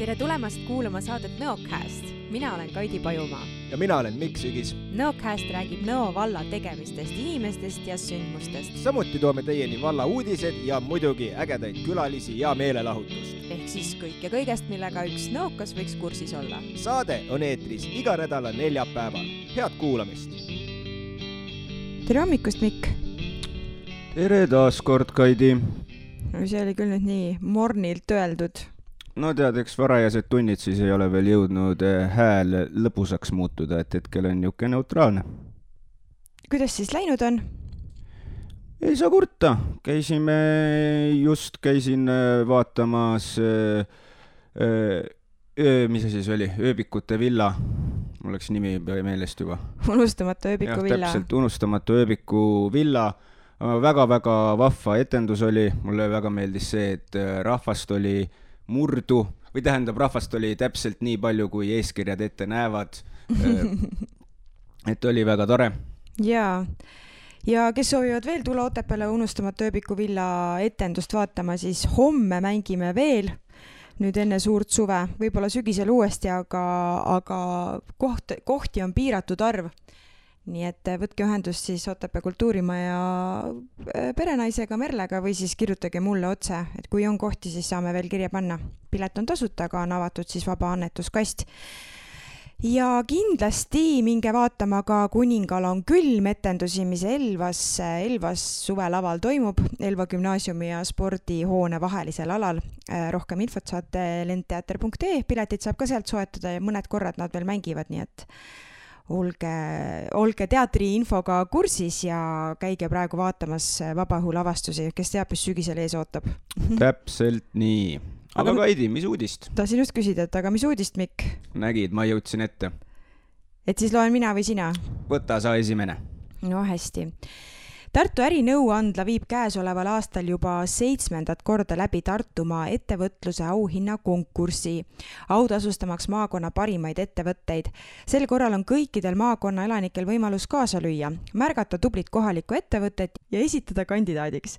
Tere tulemast kuulama saadet Nõocast. Mina olen Kaidi Pajumaa. Ja mina olen Mikk Sügis. Nõocast räägib Nõo valla tegemistest, inimestest ja sündmustest. Samuti toome teieni valla uudised ja muidugi ägedaid külalisi ja meelelahutust. Ehk siis kõik ja kõigest, millega üks nõokas võiks kursis olla. Saade on eetris iga nädala neljapäeval. Head kuulamist! Tere hommikust, Mikk! Tere taas kord, Kaidi! See oli küll nüüd nii mornilt öeldud. No tead, eks varajased tunnid siis ei ole veel jõudnud hääl lõbusaks muutuda, et hetkel on niuke neutraalne. Kuidas siis läinud on? Ei saa kurta. Käisin vaatamas, mis see siis oli, ööbikute villa. Mul läks nimi meelest juba. Unustamatu ööbiku villa. Täpselt, unustamatu ööbiku villa. Väga-väga vahva etendus oli. Mulle väga meeldis see, et rahvast oli murdu, või tähendab, rahvast oli täpselt nii palju, kui eeskirjad ette näevad. Et oli väga tore. Ja kes soovivad veel tulla Otepääle unustamatu ööbiku villa etendust vaatama, siis homme mängime veel, nüüd enne suurt suve, võib-olla sügisel uuesti, aga kohti on piiratud arv. Nii et võtke ühendust siis Otepää kultuurimaja perenaisega Merlega või siis kirjutage mulle otse, et kui on kohti, siis saame veel kirja panna. Pilet on tasuta, aga on avatud siis vaba annetuskast. Ja kindlasti minge vaatama ka Kuningal on külm etendusi, mis Elvas suvelaval toimub, Elva gümnaasiumi ja spordihoone vahelisel alal. Rohkem infot saate lendteater.ee, piletid saab ka sealt soetada ja mõned korrad nad veel mängivad, nii et olge teatri infoga kursis ja käige praegu vaatamas vabaõhu lavastusi, kes teab, mis sügisel ees ootab. Täpselt nii. Aga Kaidi, mis uudist? Tahtsin just küsida, aga mis uudist, Mikk? Nägid, ma jõudsin ette. Et siis loen mina või sina? Võta sa esimene. No hästi. Tartu ärinõuandla viib käesoleval aastal juba 7. korda läbi Tartumaa ettevõtluse auhinna konkursi, autasustamaks maakonna parimaid ettevõtteid. Sel korral on kõikidel maakonna elanikel võimalus kaasa lüüa, märgata tublit kohalikku ettevõtet ja esitada kandidaadiks.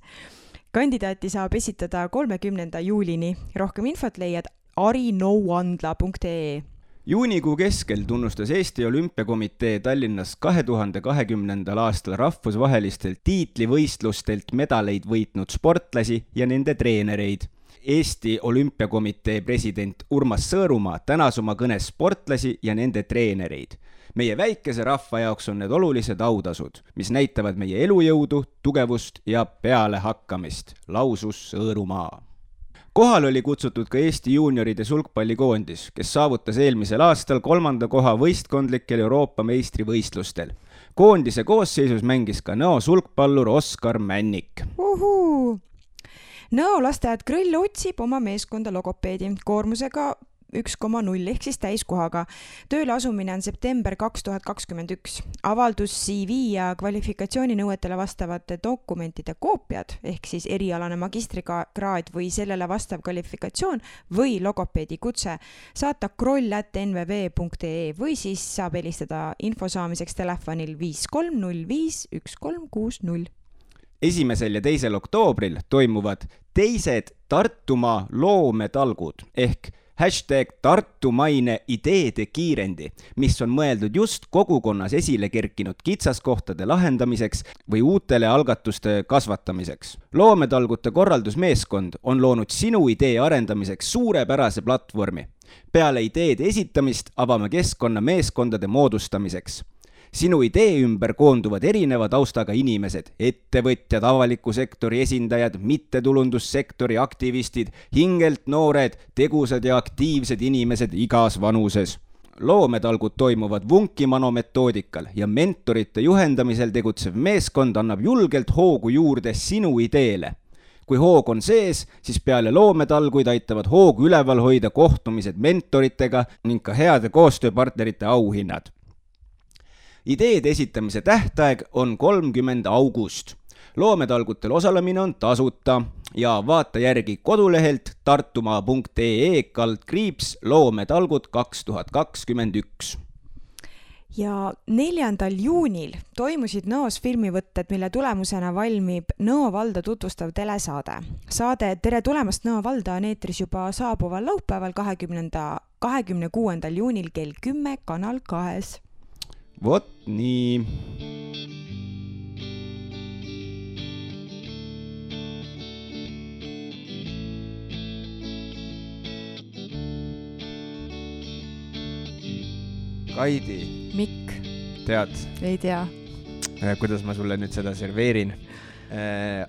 Kandidaati saab esitada 30. juulini. Rohkem infot leiad arinõuandla.ee. Juunikuu keskel tunnustas Eesti Olümpiakomitee Tallinnas 2020. aastal rahvusvahelistelt tiitlivõistlustelt medaleid võitnud sportlasi ja nende treenereid. Eesti Olümpiakomitee president Urmas Sõõrumaa tänas oma kõnes sportlasi ja nende treenereid. Meie väikese rahva jaoks on need olulised autasud, mis näitavad meie elujõudu, tugevust ja pealehakkamist, lausus Sõõrumaa. Kohal oli kutsutud ka Eesti juunioride sulgpallikoondis, kes saavutas eelmisel aastal 3. koha võistkondlikel Euroopa meistrivõistlustel. Koondise koosseisus mängis ka Nõo sulgpallur Oskar Männik. Nõo lasteaed Grõll otsib oma meeskonda logopeedi koormusega 1,0 ehk siis täiskohaga. Tööle asumine on september 2021. Avaldus CV ja kvalifikatsiooninõuetele vastavate dokumentide koopiad ehk siis erialane magistrikraad või sellele vastav kvalifikatsioon või logopeedi kutse saata kroll@nvv.ee või siis saab helistada info saamiseks telefonil 5305 1360. 1. ja 2. oktoobril toimuvad teised Tartumaa loometalgud ehk #Tartumaine ideede kiirendi, mis on mõeldud just kogukonnas esile kerkinud kitsaskohtade lahendamiseks või uutele algatuste kasvatamiseks. Loometalgute korraldusmeeskond on loonud sinu idee arendamiseks suurepärase platvormi. Peale ideede esitamist avame keskkonna meeskondade moodustamiseks. Sinu idee ümber koonduvad erineva taustaga inimesed, ettevõtjad, avaliku sektori esindajad, mittetulundussektori aktivistid, hingelt noored, tegusad ja aktiivsed inimesed igas vanuses. Loometalgud toimuvad Vunkimano metoodikal ja mentorite juhendamisel tegutsev meeskond annab julgelt hoogu juurde sinu ideele. Kui hoog on sees, siis peale loometalguid aitavad hoogu üleval hoida kohtumised mentoritega ning ka heade koostööpartnerite auhinnad. Ideede esitamise tähtaeg on 30. august. Loometalgutel osalemine on tasuta ja vaata järgi kodulehelt tartumaa.ee /loometalgud 2021. ja 4. juunil toimusid Nõos filmivõtted, mille tulemusena valmib Nõo valda tutvustav telesaade. Saade Tere tulemast Nõo valda on eetris juba saabuval laupäeval 26. juunil kell 10 Kanal 2. Vot nii. Kaidi. Mikk? Tead? Ei tea. Kuidas ma sulle nüüd seda serveerin.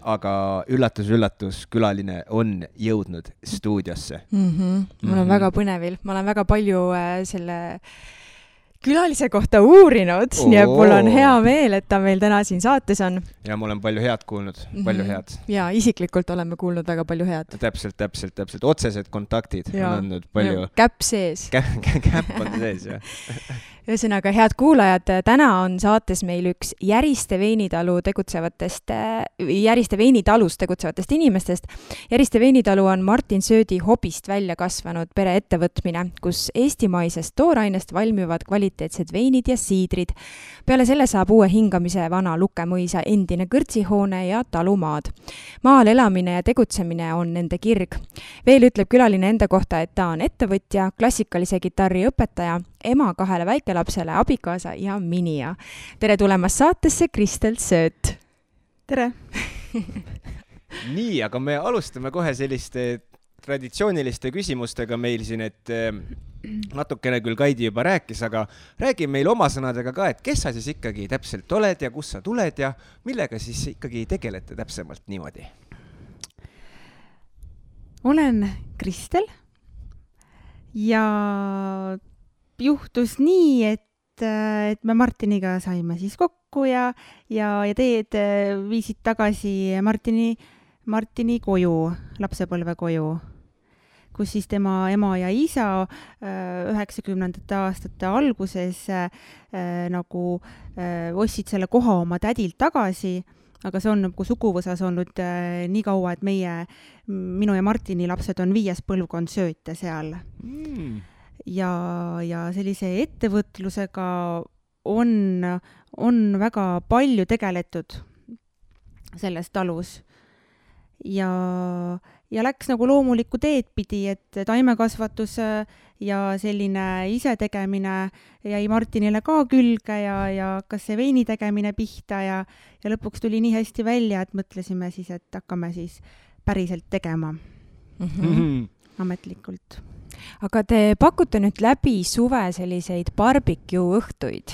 Aga üllatus, külaline on jõudnud stuudiosse. Mul on väga põnevil. Ma olen väga palju selle külalise kohta uurinud, nii et mul on hea meel, et ta meil täna siin saates on. Ja ma olen palju head kuulnud, palju head. Ja isiklikult oleme kuulnud väga palju head. Täpselt. Otsesed kontaktid on andnud palju. Käpp sees. Käpp on sees, jah. Ühesõnaga, head kuulajad, täna on saates meil üks Järiste Veinitalus tegutsevatest inimestest. Järiste Veinitalu on Martin Söödi hobist välja kasvanud pereettevõtmine, kus eestimaisest toorainest valmivad kvaliteetsed veinid ja siidrid. Peale selle saab uue hingamise vana Lukemõisa endine kõrtsihoone ja talumaad. Maal elamine ja tegutsemine on nende kirg. Veel ütleb külaline enda kohta, et ta on ettevõtja, klassikalise kitarri õpetaja, ema 2 väikelapsele, abikaasa ja minija. Tere tulemast saatesse, Kristel Sööt! Tere! Nii, aga me alustame kohe selliste traditsiooniliste küsimustega meil siin, et natukene küll Kaidi juba rääkis, aga räägi meil oma sõnadega ka, et kes sa siis ikkagi täpselt oled ja kus sa tuled ja millega siis ikkagi tegelete täpsemalt niimoodi? Olen Kristel ja juhtus nii, et me Martiniga saime siis kokku ja teed viisid tagasi Martini koju, lapsepõlve koju, kus siis tema ema ja isa 90. aastate alguses ostsid selle koha oma tädilt tagasi, aga see on nagu suguvõsas olnud nii kaua, et minu ja Martini lapsed on 5. põlvkond Sööte seal. Ja sellise ettevõtlusega on väga palju tegeletud selles talus ja läks nagu loomulikku teed pidi, et taimekasvatus ja selline isetegemine jäi Martinile ka külge ja hakkas see veini tegemine pihta ja lõpuks tuli nii hästi välja, et mõtlesime siis, et hakkame siis päriselt tegema ametlikult. Aga te pakute nüüd läbi suve selliseid barbecue õhtuid.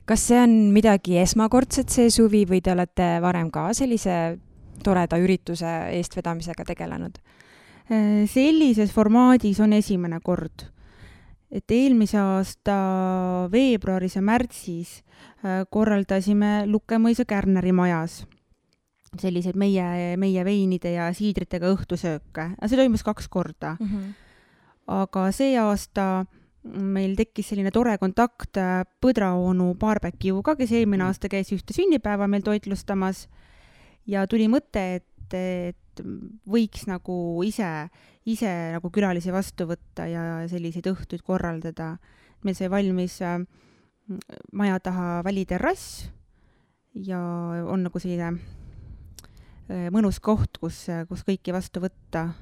Kas see on midagi esmakordset see suvi või te olete varem ka sellise toreda ürituse eestvedamisega tegelenud? Sellises formaadis on esimene kord. Et eelmise aasta veebruaris ja märtsis korraldasime Lukemõisa Kärneri majas selliseid meie veinide ja siidritega õhtusööke. See toimus 2 korda. Aga see aasta meil tekkis selline tore kontakt Põdraonu barbecue'ga, kes eelmine aasta käis ühte sünnipäeva meil toitlustamas ja tuli mõte, et võiks nagu ise nagu külalisi vastu võtta ja selliseid õhtuid korraldada. Meil sai valmis maja taha väliterrass ja on nagu selline mõnus koht, kus kõiki vastu võtta.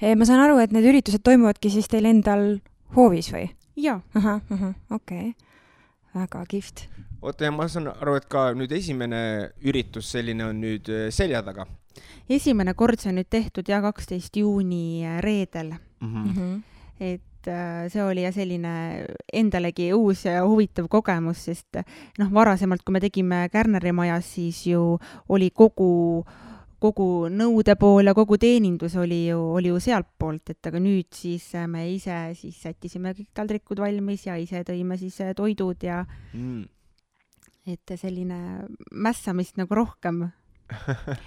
Ma saan aru, et need üritused toimuvadki siis teil endal hoovis või? Jaa. Okei. Väga kihvt. Oota, ja ma saan aru, et ka nüüd esimene üritus selline on nüüd selja taga. Esimene kord see on nüüd tehtud 12. juuni reedel. Et see oli selline endalegi uus ja huvitav kogemus, sest varasemalt, kui me tegime Kärneri majas, siis ju oli kogu nõude pool ja kogu teenindus oli ju sealt poolt, et aga nüüd siis me ise siis sättisime kõik taldrikud valmis ja ise tõime siis toidud ja et selline mässamist nagu rohkem.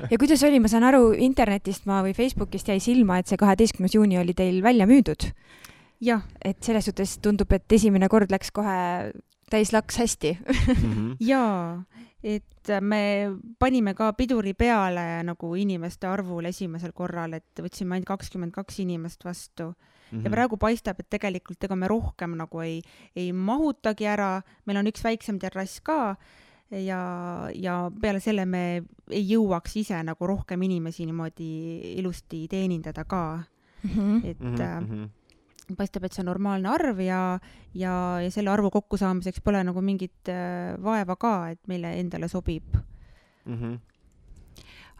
Ja kuidas oli, ma saan aru, internetist või Facebookist jäi silma, et see 12. juuni oli teil välja müüdud. Jah. Et selles suhtes tundub, et esimene kord läks kohe täis laks hästi. Jaa. et me panime ka piduri peale nagu inimeste arvul esimesel korral, et võtsime ainult 22 inimest vastu. Ja praegu paistab, et tegelikult ega me rohkem nagu ei mahutagi ära, meil on üks väiksem terrass ka ja peale selle me ei jõuaks ise nagu rohkem inimesi niimoodi ilusti teenindada ka. Et paistab, et see on normaalne arv ja selle arvu kokkusaamiseks pole nagu mingit vaeva ka, et meile endale sobib.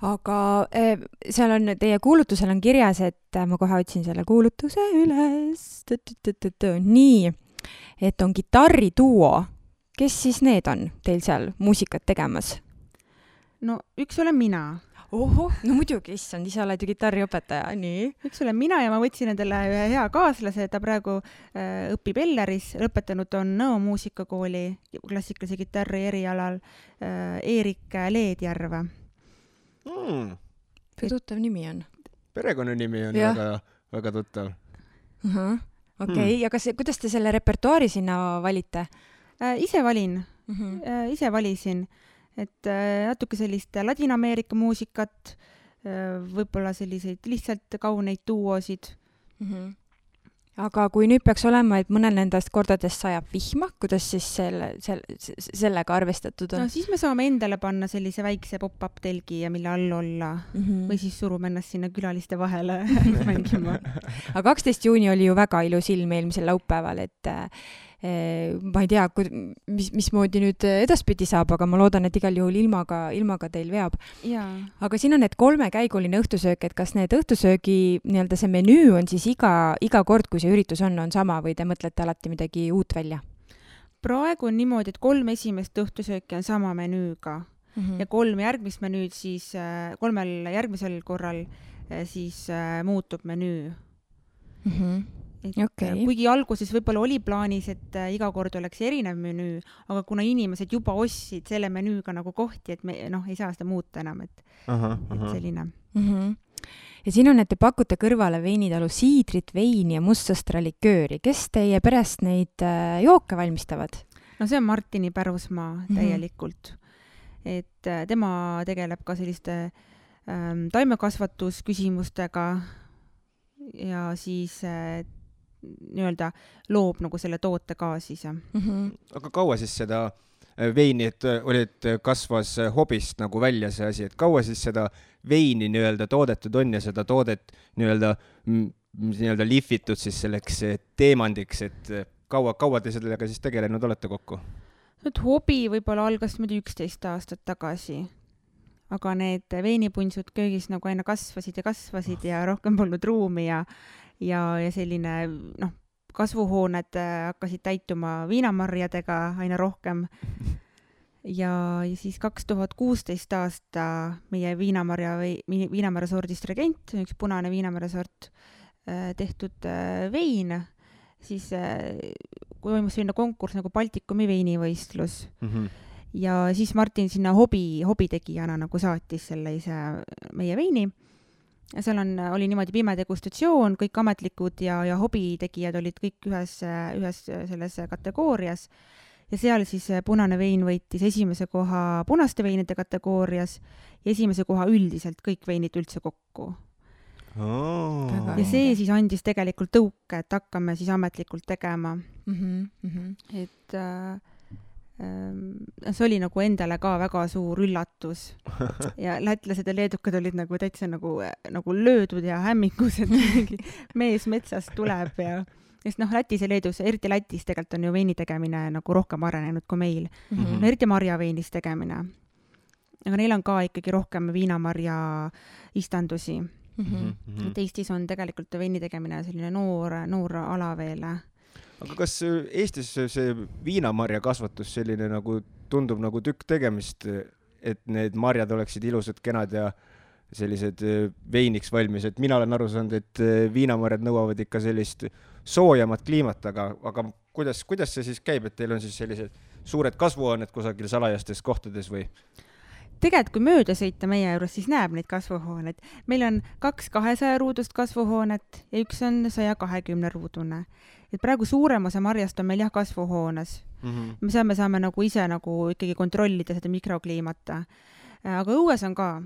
Aga seal on, teie kuulutusel on kirjas, et ma kohe otsin selle kuulutuse üles. Nii, et on kitarriduo. Kes siis need on teil seal muusikat tegemas? No üks olen mina. Oho, no muidugi, issand, ise oled ju kitarriõpetaja, nii. Üks olen mina ja ma võtsin endale ühe hea kaaslase, ta praegu õpib Elleris, lõpetanud on Nõo muusikakooli klassikalise kitarri erialal Eerik Leedjärve. Tuttav nimi on? Perekonnanimi on väga, väga tuttav. Okei, ja kuidas te selle repertuaari sinna valite? Ise valin, ise valisin, et natuke sellist Ladina-Ameerika muusikat, võib-olla selliseid lihtsalt kauneid duosid. Aga kui nüüd peaks olema, et mõnel nendest kordadest sajab vihma, kuidas siis sellega arvestatud on? No siis me saame endale panna sellise väikse pop-up telgi ja mille all olla või siis surume ennast sinna külaliste vahele mängima. Aga 12. juuni oli ju väga ilus ilm eelmisel laupäeval, et ma ei tea, mismoodi nüüd edaspidi saab, aga ma loodan, et igal juhul ilmaga teil veab. Aga siin on need 3-käiguline õhtusöök, et kas need õhtusöögi nii-öelda see menüü on siis iga kord, kui see üritus on sama või te mõtlete alati midagi uut välja? Praegu on niimoodi, et 3 esimest õhtusööki on sama menüüga ja 3 järgmist menüüd siis, 3 järgmisel korral siis muutub menüü. Kuigi alguses võib-olla oli plaanis, et iga kord oleks erinev menüü, aga kuna inimesed juba ostsid selle menüüga nagu kohti, et me ei saa seda muuta enam, et selline. Ja siin on, et te pakute kõrvale veinitalu siidrit, veini ja mustsõstra likööri. Kes teie perest neid jooke valmistavad? No see on Martini pärusmaa täielikult. Et tema tegeleb ka selliste taimekasvatusküsimustega ja siis nii-öelda loob nagu selle toote ka siis. Aga kaua siis seda veini, et kasvas hobist nagu välja see asi, et kaua siis seda veini nii-öelda toodetud on ja seda toodet nii-öelda lihvitud siis selleks teemandiks, et kaua te sellega siis tegelenud olete kokku? Nüüd hobi võib-olla algas 11 aastat tagasi, aga need veinipunsud köögis nagu aina kasvasid ja rohkem polnud ruumi ja selline, kasvuhooned hakkasid täituma viinamarjadega aina rohkem. Ja siis 2016 aasta meie viinamarja sordist Regent, üks punane viinamarja sort tehtud vein, siis toimus selline konkurss nagu Baltikumi veinivõistlus. Ja siis Martin sinna hobitegijana nagu saatis selle ise meie veini. Seal oli niimoodi pime degustatsioon, kõik ametlikud ja hobitegijad olid kõik ühes selles kategoorias. Ja seal siis punane vein võitis esimese koha punaste veinide kategoorias ja esimese koha üldiselt kõik veinid üldse kokku. Ja see siis andis tegelikult tõuke, et hakkame siis ametlikult tegema. Et see oli nagu endale ka väga suur üllatus ja lätlased ja leedukad olid nagu täitsa nagu löödud ja hämmingus, et mingi mees metsast tuleb ja sest Lätis ja Leedus, eriti Lätis tegelikult on ju veini tegemine nagu rohkem arenenud kui meil. Eriti marjaveinis tegemine. Aga neil on ka ikkagi rohkem viinamarja istandusi. Et Eestis on tegelikult veini tegemine selline noor ala veel. Aga kas Eestis see viinamarja kasvatus selline nagu tundub nagu tükk tegemist, et need marjad oleksid ilusad, kenad ja sellised veiniks valmis, et mina olen aru saanud, et viinamarjad nõuavad ikka sellist soojamat kliimat, aga kuidas see siis käib, et teil on siis sellised suured kasvuhooned kusagil salajastes kohtades või? tegelikult kui mööda sõita meie juures, siis näeb neid kasvuhooneid. Meil on 2 200 ruudust kasvuhoonet ja üks on 120 ruudune. Et praegu suurem osa marjast on meil kasvuhoones. Me saame nagu ise nagu ikkagi kontrollida seda mikrokliimata. Aga õues on ka.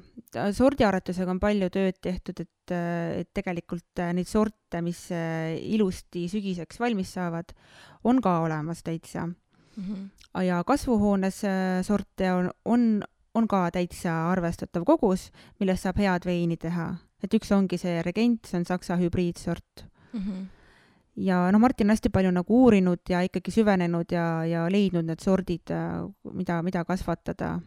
Sordiaretusega on palju tööd tehtud, et tegelikult neid sorte, mis ilusti sügiseks valmis saavad, on ka olemas täitsa. Ja kasvuhoones sorte on ka täitsa arvestatav kogus, millest saab head veini teha. Et üks ongi see Regent, see on saksa hübriidsort. Ja Martin on hästi palju nagu uurinud ja ikkagi süvenenud ja leidnud need sordid, mida kasvatada.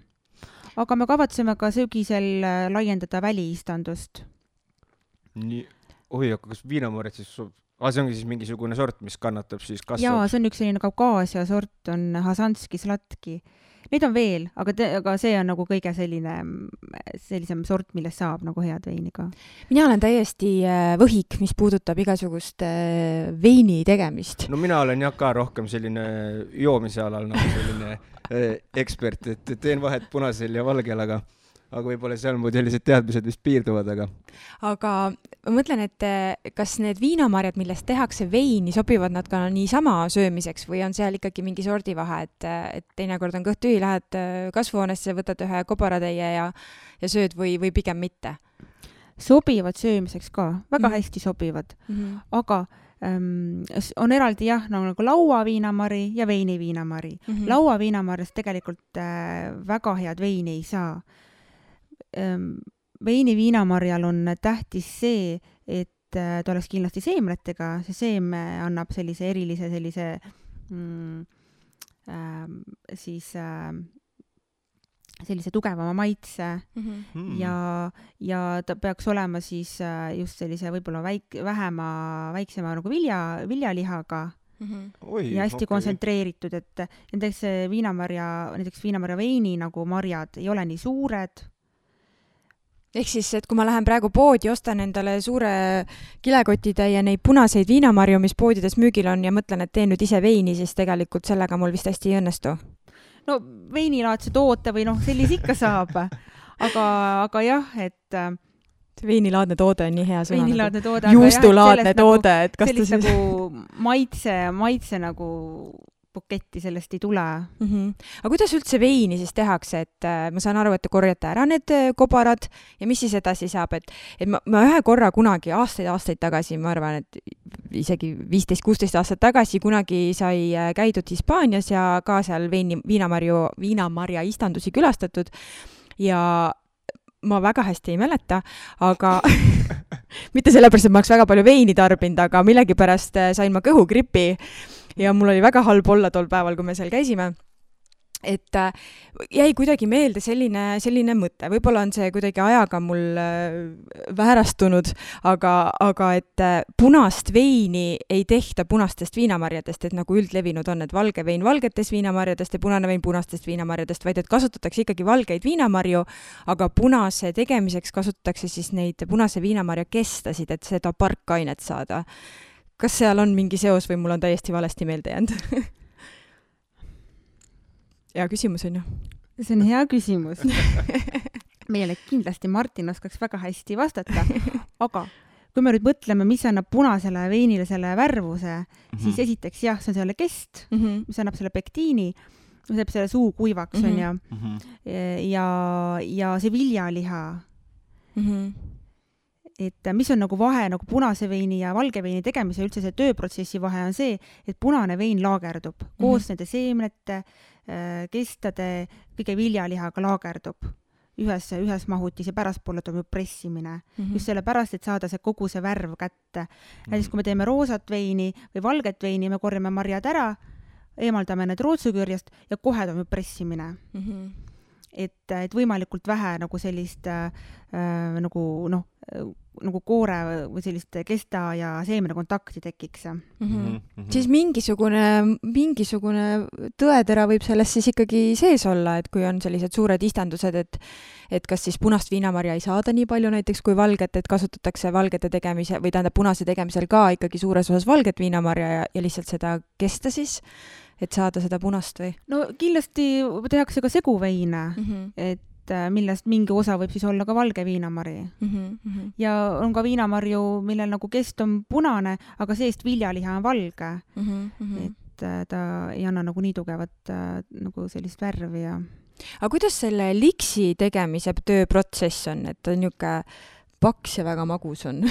Aga me kavatseme ka sügisel laiendada väliistandust. Nii, aga kas viinamarjad siis, see ongi siis mingisugune sort, mis kannatab siis kasvab? Jaa, see on üks selline Kaukaasia sort, on Hasanski Slatki. Neid on veel, aga see on nagu kõige sellisem sort, millest saab nagu head veini ka. Mina olen täiesti võhik, mis puudutab igasugust veini tegemist. No mina olen ka rohkem selline joomise alal nagu selline ekspert, et teen vahet punasel ja valgel, aga võib-olla seal mu sellised teadmised vist piirduvad, aga ma mõtlen, et kas need viinamarjad, millest tehakse veini, sobivad nad ka niisama söömiseks või on seal ikkagi mingi sordivahe, et teinekord on kõht tühi, lähed kasvuhoonesse, võtad ühe kobaratäie ja sööd või pigem mitte? Sobivad söömiseks ka, väga hästi sobivad, aga on eraldi nagu lauaviinamari ja veiniviinamari. Lauaviinamarjast tegelikult väga head veini ei saa. Veiniviinamarjal on tähtis see, et ta oleks kindlasti seemnetega, see seeme annab sellise erilise sellise tugevama maitse ja ta peaks olema siis just sellise võib-olla väiksema nagu viljalihaga ja hästi kontsentreeritud, et näiteks viinamarja veini nagu marjad ei ole nii suured. Ehk siis, et kui ma lähen praegu poodi, ostan endale suure kilekotitäie neid punaseid viinamarju, mis poodides müügil on ja mõtlen, et teen nüüd ise veini, siis tegelikult sellega mul vist hästi ei õnnestu. No veinilaadse toote või sellise ikka saab, aga jah, et veinilaadne toode on nii hea sõna. Veinilaadne toode. Juustulaadne toode, et kas ta siis nagu maitse nagu buketti sellest ei tule. Aga kuidas üldse veini siis tehakse, et ma saan aru, et te korjate ära need kobarad ja mis siis edasi saab, et ma ühe korra kunagi aastaid tagasi, ma arvan, et isegi 15-16 aastat tagasi kunagi sai käidud Hispaanias ja ka seal viinamarja istandusi külastatud ja ma väga hästi ei mäleta, aga mitte sellepärast, et ma oleks väga palju veini tarbinud, aga millegipärast sain ma kõhugripi ja mul oli väga halb olla tol päeval, kui me seal käisime. Et jäi kuidagi meelde selline mõte. Võib-olla on see kuidagi ajaga mul väärastunud, aga et punast veini ei tehta punastest viinamarjadest, et nagu üldlevinud on, et valge vein valgetest viinamarjadest ja punane vein punastest viinamarjadest, vaid et kasutatakse ikkagi valgeid viinamarju, aga punase tegemiseks kasutatakse siis neid punase viinamarja kestasid, et seda parkainet saada. Kas seal on mingi seos või mul on täiesti valesti meelde jäänud? Hea küsimus on ju. See on hea küsimus. Meile kindlasti Martin oskaks väga hästi vastata, aga kui me nüüd mõtleme, mis annab punasele veinile selle värvuse, siis esiteks jah, see on selle kest, mis annab selle pektiini, mis annab selle suu kuivaks on ja see viljaliha. Et mis on nagu vahe nagu punase veini ja valge veini tegemise üldse see tööprotsessi vahe on see, et punane vein laagerdub koos nende seemnete, kestade, kõige viljalihaga laagerdub ühes mahutis ja pärastpoole toimub pressimine. Just selle pärast, et saada see kogu see värv kätte. Näiteks kui me teeme roosat veini või valget veini, me korjame marjad ära, eemaldame need rootsukürjast ja kohe toimub pressimine. Et võimalikult vähe nagu sellist nagu koore või sellist kesta ja seemne kontakti tekiks. Siis mingisugune tõetera võib sellest siis ikkagi sees olla, et kui on sellised suured istandused, et kas siis punast viinamarja ei saada nii palju näiteks kui valget, et kasutatakse valgete tegemise või tähendab punase tegemisel ka ikkagi suures osas valget viinamarja ja lihtsalt seda kesta siis, et saada seda punast või? No kindlasti tehakse ka seguveine, et millest mingi osa võib siis olla ka valge viinamari. Ja on ka viinamarju, millel nagu kest on punane, aga seest viljaliha on valge. Et ta ei anna nagu nii tugevat nagu sellist värvi ja... Aga kuidas selle liksi tegemise tööprotsess on, et ta niisugune paks ja väga magus on?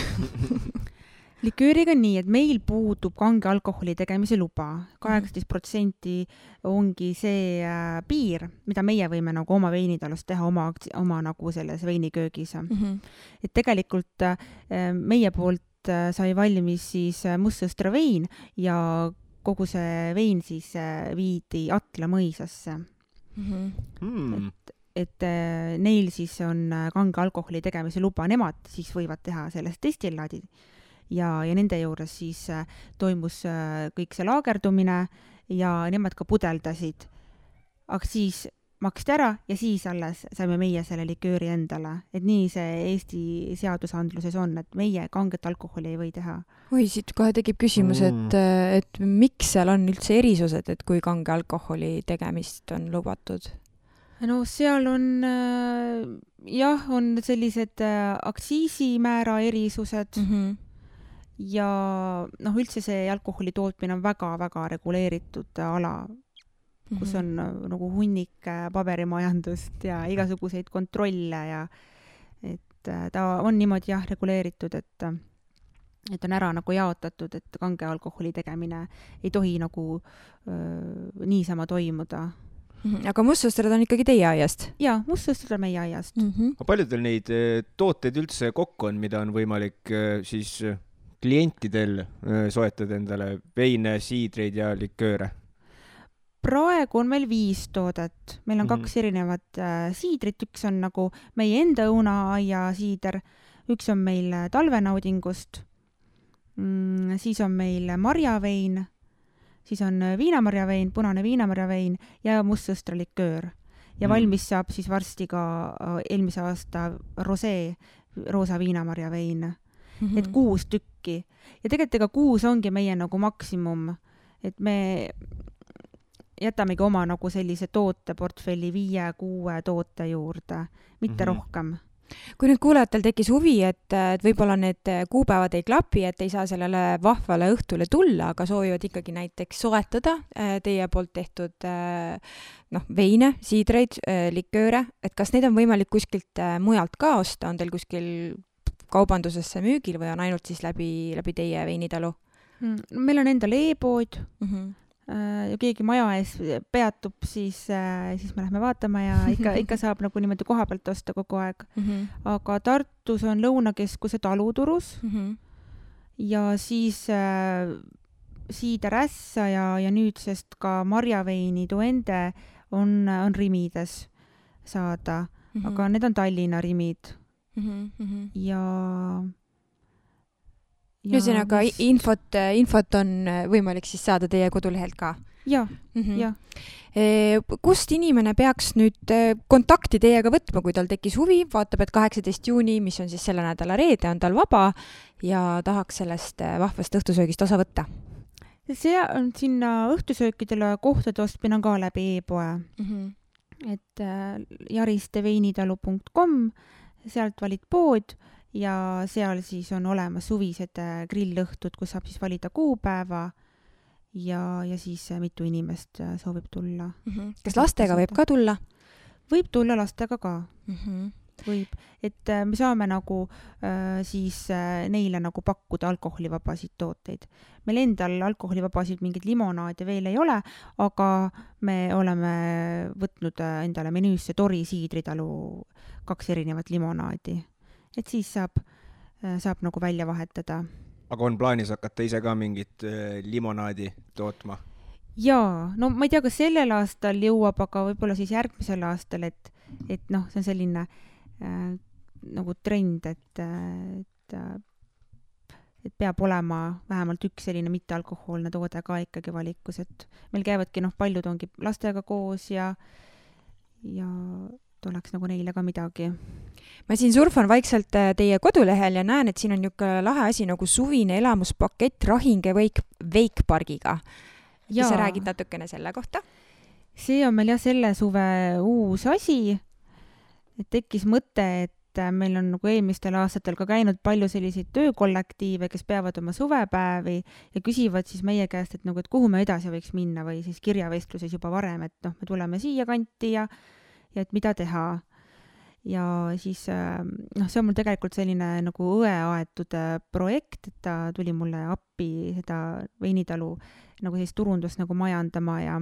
Likööriga nii, et meil puudub kange alkoholi tegemise luba. 18% ongi see piir, mida meie võime nagu oma veinitalust teha oma nagu selles veiniköögis. Et tegelikult meie poolt sai valmis siis mustsõstra vein ja kogu see vein siis viidi Atla mõisasse. Et neil siis on kange alkoholi tegemise luba, nemad siis võivad teha sellest destillaadi ja nende juures siis toimus kõik see laagerdumine ja nemad ka pudeldasid. Aga siis maksti ära ja siis alles saime meie selle likööri endale. Et nii see Eesti seadusandluses on, et meie kanget alkoholi ei või teha. Oi, siit kohe tekib küsimus, et miks seal on üldse erisused, et kui kange alkoholi tegemist on lubatud? No seal on, on sellised aktsiisimäära erisused ja üldse see alkoholi tootmine on väga-väga reguleeritud ala, kus on nagu hunnik paberimajandust ja igasuguseid kontrolle ja et ta on niimoodi reguleeritud, et on ära nagu jaotatud, et kange alkoholi tegemine ei tohi nagu niisama toimuda. Aga mustsõstrad on ikkagi teie aiast? Jaa, mustsõstrad on meie aiast. Paljudel neid tooteid üldse kokku on, mida on võimalik siis klientidel soetada endale veine, siidreid ja likööre? Praegu on meil 5 toodet. Meil on 2 erinevat siidrit. Üks on nagu meie enda õunaaia siider. Üks on meil talvenaudingust. Siis on meil marjavein. Siis on viinamarjavein, punane viinamarjavein ja mustsõstra liköör. Ja valmis saab siis varsti ka eelmise aasta rosee, roosa viinamarjavein. Et 6 tükki. Ja tegelikult 6 ongi meie nagu maksimum. Et me jätamegi oma nagu sellise tooteportfelli 5-6 toote juurde, mitte rohkem. Kui nüüd kuulajatel tekkis huvi, et võib-olla need kuupäevad ei klapi, et ei saa sellele vahvale õhtule tulla, aga soovivad ikkagi näiteks soetada teie poolt tehtud veine, siidreid, likööre, et kas neid on võimalik kuskilt mujalt ka osta, on teil kuskil kaubandusesse müügil või on ainult siis läbi teie veinitalu? Meil on endal e-pood ja keegi maja ees peatub, siis me lähme vaatama ja ikka saab nagu niimoodi koha pealt osta kogu aeg. Aga Tartus on Lõunakeskuse taluturus ja siis siider ässa ja nüüdsest ka marjaveini Duende on Rimides saada, aga need on Tallinna Rimid. Ja ühesõnaga infot on võimalik siis saada teie kodulehelt ka? Ja. Kust inimene peaks nüüd kontakti teiega võtma, kui tal tekkis huvi, vaatab, et 18 juuni, mis on siis selle nädala reede, on tal vaba ja tahaks sellest vahvast õhtusöögist osa võtta? See on sinna õhtusöökidele kohtade ostmine on ka läbi e-poe. Et jaristeveinitalu.com, sealt valid pood ja seal siis on olemas suvised grillõhtud, kus saab siis valida kuupäeva ja siis mitu inimest soovib tulla. Kas lastega võib ka tulla? Võib tulla lastega ka. Võib. Et me saame nagu siis neile nagu pakkuda alkoholivabasid tooteid. Meil endal alkoholivabasid mingid limonaade veel ei ole, aga me oleme võtnud endale menüüsse Tori siidritalu 2 erinevat limonaadi. Et siis saab nagu välja vahetada. Aga on plaanis hakata ise ka mingit limonaadi tootma? Jaa, no ma ei tea, kas sellel aastal jõuab, aga võib-olla siis järgmisel aastal, et see on selline nagu trend, et peab olema vähemalt üks selline mittealkohoolne toode ka ikkagi valikus, et meil käivadki paljud ongi lastega koos ja tuleks nagu neile ka midagi. Ma siin surfan vaikselt teie kodulehel ja näen, et siin on niisugune lahe asi nagu suvine elamuspakett Rahinge Veikpargiga. Ja sa räägid natukene selle kohta? See on meil selle suve uus asi, et tekkis mõte, et meil on nagu eelmistel aastatel ka käinud palju selliseid töökollektiive, kes peavad oma suvepäevi ja küsivad siis meie käest, et nagu, et kuhu me edasi võiks minna või siis kirjavestluses juba varem, et noh, me tuleme siia kanti ja et mida teha. Ja siis noh, see on mul tegelikult selline nagu õe aetud projekt, et ta tuli mulle appi seda veinitalu nagu sellist turundust nagu majandama ja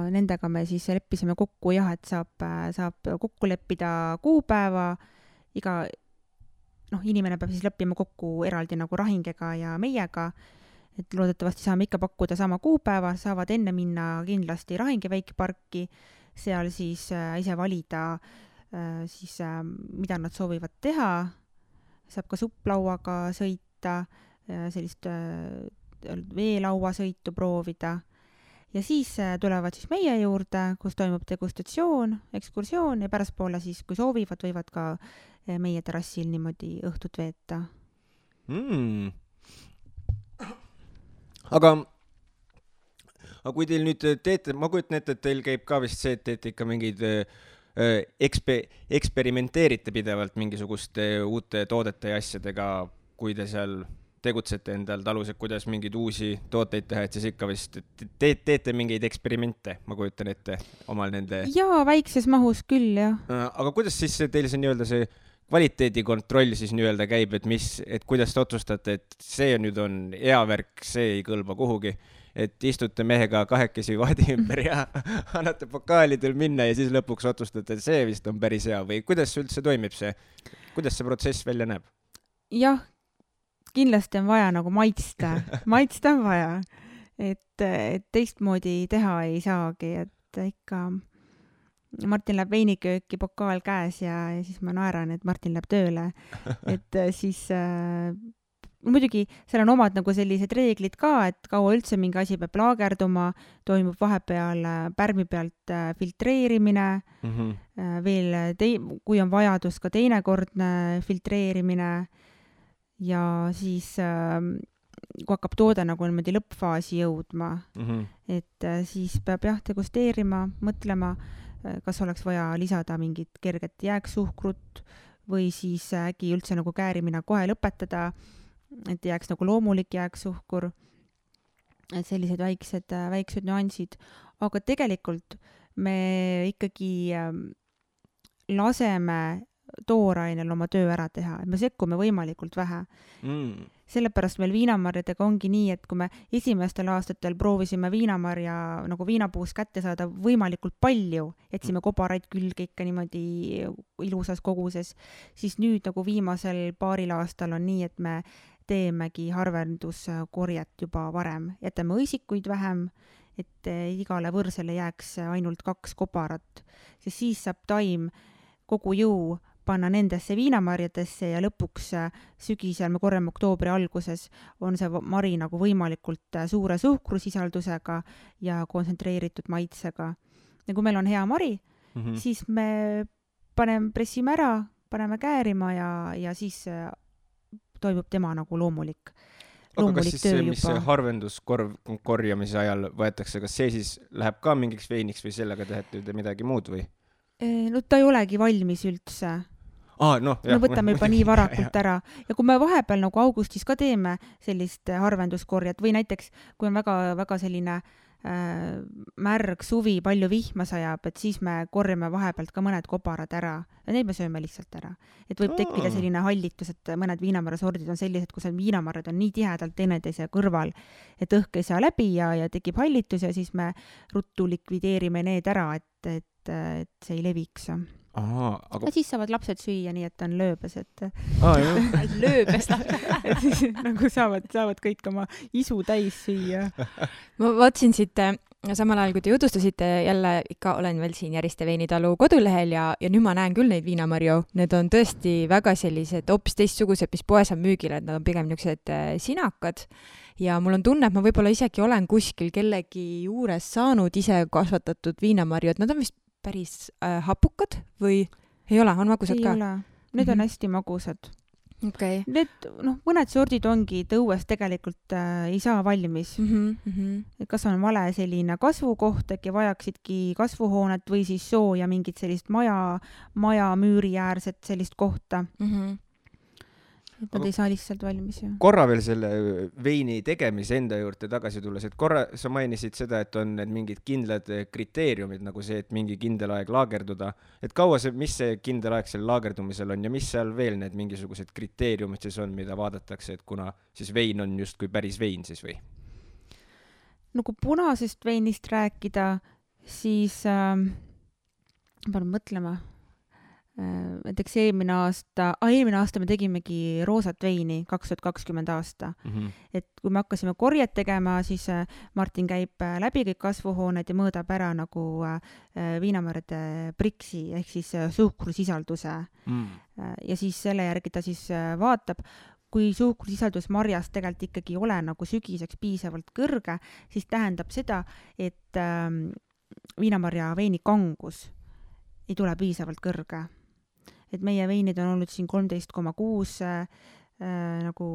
nendega me siis leppisime kokku jah, et saab kokku leppida kuupäeva, iga inimene peab siis leppima kokku eraldi nagu Rahingega ja meiega, et loodetavasti saame ikka pakkuda sama kuupäeva, saavad enne minna kindlasti Rahinge väikeparki, seal siis ise valida siis mida nad soovivad teha, saab ka supplauaga sõita, sellist veelauasõitu proovida. Ja siis tulevad siis meie juurde, kus toimub degustatsioon, ekskursioon ja pärastpoole siis, kui soovivad, võivad ka meie terrassil niimoodi õhtut veeta. Aga kui teil nüüd teete, ma kujutan ette, et teil käib ka vist see, et teete ikka mingeid eksperimenteerite pidevalt mingisuguste uute toodete ja asjadega, kui te seal tegutsete endal talus, et kuidas mingeid uusi tooteid teha, et siis ikka vist teete mingeid eksperimente, ma kujutan ette omal nende... Jaa, väikses mahus küll, jah. Aga kuidas siis teil see nii-öelda see kvaliteedikontroll siis nii-öelda käib, et kuidas te otsustate, et see nüüd on hea värk, see ei kõlba kuhugi, et istute mehega kahekesi vaadi ümber ja annate pokaalidel minna ja siis lõpuks otsustate, et see vist on päris hea või kuidas üldse toimib see, kuidas see protsess välja näeb? Jah, kindlasti on vaja nagu maitsta on vaja, et teistmoodi teha ei saagi, et ikka Martin läheb veinikööki pokaal käes ja siis ma naeran, et Martin läheb tööle, et siis muidugi seal on omad nagu sellised reeglid ka, et kaua üldse mingi asi peab laagerduma, toimub vahepeal pärmi pealt filtreerimine, veel kui on vajadus ka teinekordne filtreerimine ja siis kui hakkab toode nagu niimoodi lõppfaasi jõudma, et siis peab jah degusteerima, mõtlema, kas oleks vaja lisada mingit kerget jääksuhkrut või siis äkki üldse nagu käärimine kohe lõpetada, et jääks nagu loomulik jääksuhkur, et sellised väiksed nüansid, aga tegelikult me ikkagi laseme toorainel oma töö ära teha, et me sekkume võimalikult vähe. Sellepärast meil viinamarjadega ongi nii, et kui me esimestel aastatel proovisime viinamarja nagu viinapuust kätte saada võimalikult palju, jätsime kobaraid külge ikka niimoodi ilusas koguses, siis nüüd nagu viimasel paaril aastal on nii, et me teemegi harvenduskorjet juba varem. Jätame õisikuid vähem, et igale võrsele jääks ainult 2 kobarat, sest siis saab taim kogu jõu panna nendesse viinamarjadesse ja lõpuks sügisel, me korjame oktoobri alguses, on see mari nagu võimalikult suure suhkrusisaldusega ja kontsentreeritud maitsega. Ja kui meil on hea mari, siis me pressime ära, paneme käärima ja siis toimub tema nagu loomulik aga kas siis see, mis harvenduskorjamise ajal võetakse, kas see siis läheb ka mingiks veiniks või sellega tehete midagi muud või? No ta ei olegi valmis üldse. Me võtame juba nii varakult ära ja kui me vahepeal nagu augustis ka teeme sellist harvenduskorjat või näiteks kui on väga selline märg suvi, palju vihma sajab, et siis me korjame vahepealt ka mõned kobarad ära ja neid me sööme lihtsalt ära. Et võib tekkida selline hallitus, et mõned viinamarjasordid on sellised, kus viinamarjad on nii tihedalt teineteise kõrval, et õhk ei saa läbi ja tekib hallitus ja siis me ruttu likvideerime need ära, et see ei leviks. Aga... Ja siis saavad lapsed süüa nii, et on lööbes, et lööbes et siis nagu saavad kõik oma isu täis süüa. Ma vaatsin siit samal ajal, kui te jutustasite, jälle ikka olen veel siin Järiste veinitalu kodulehel ja nüüd ma näen küll neid viinamarju. Need on tõesti väga sellised hoopis teistsugused, mis poes on müügil, et nad on pigem niisugused sinakad. Ja mul on tunne, et ma võib-olla isegi olen kuskil kellegi juures saanud ise kasvatatud viinamarju, et nad on vist päris hapukad või ei ole, on magusad ka? Ei ole, need on hästi magusad. okei. Need, mõned sordid ongi, et õues tegelikult ei saa valmis. Et kas on vale selline kasvukoht, äkki vajaksidki kasvuhoonet või siis sooja mingit sellist maja müüri äärset sellist kohta. Et nad ei saa lihtsalt valmis. Korra veel selle veini tegemise enda juurde tagasi tulles, et korra sa mainisid seda, et on need mingid kindlad kriteeriumid, nagu see, et mingi kindel aeg laagerduda. Et kaua see, mis see kindel aeg seal laagerdumisel on ja mis seal veel need mingisugused kriteeriumid siis on, mida vaadatakse, et kuna siis vein on just kui päris vein siis või? No kui punasest veinist rääkida, siis pean mõtlema. Näiteks eelmine aasta me tegimegi roosat veini 2020 aasta. Et kui me hakkasime korjet tegema, siis Martin käib läbi kõik kasvuhooned ja mõõdab ära nagu viinamarjade priksi ehk siis suhkrusisalduse. Ja siis selle järgi ta siis vaatab, kui suhkrusisaldus marjas tegelikult ikkagi ei ole nagu sügiseks piisavalt kõrge, siis tähendab seda, et viinamarja veini kangus ei tule piisavalt kõrge. Et meie veinid on olnud siin 13,6 nagu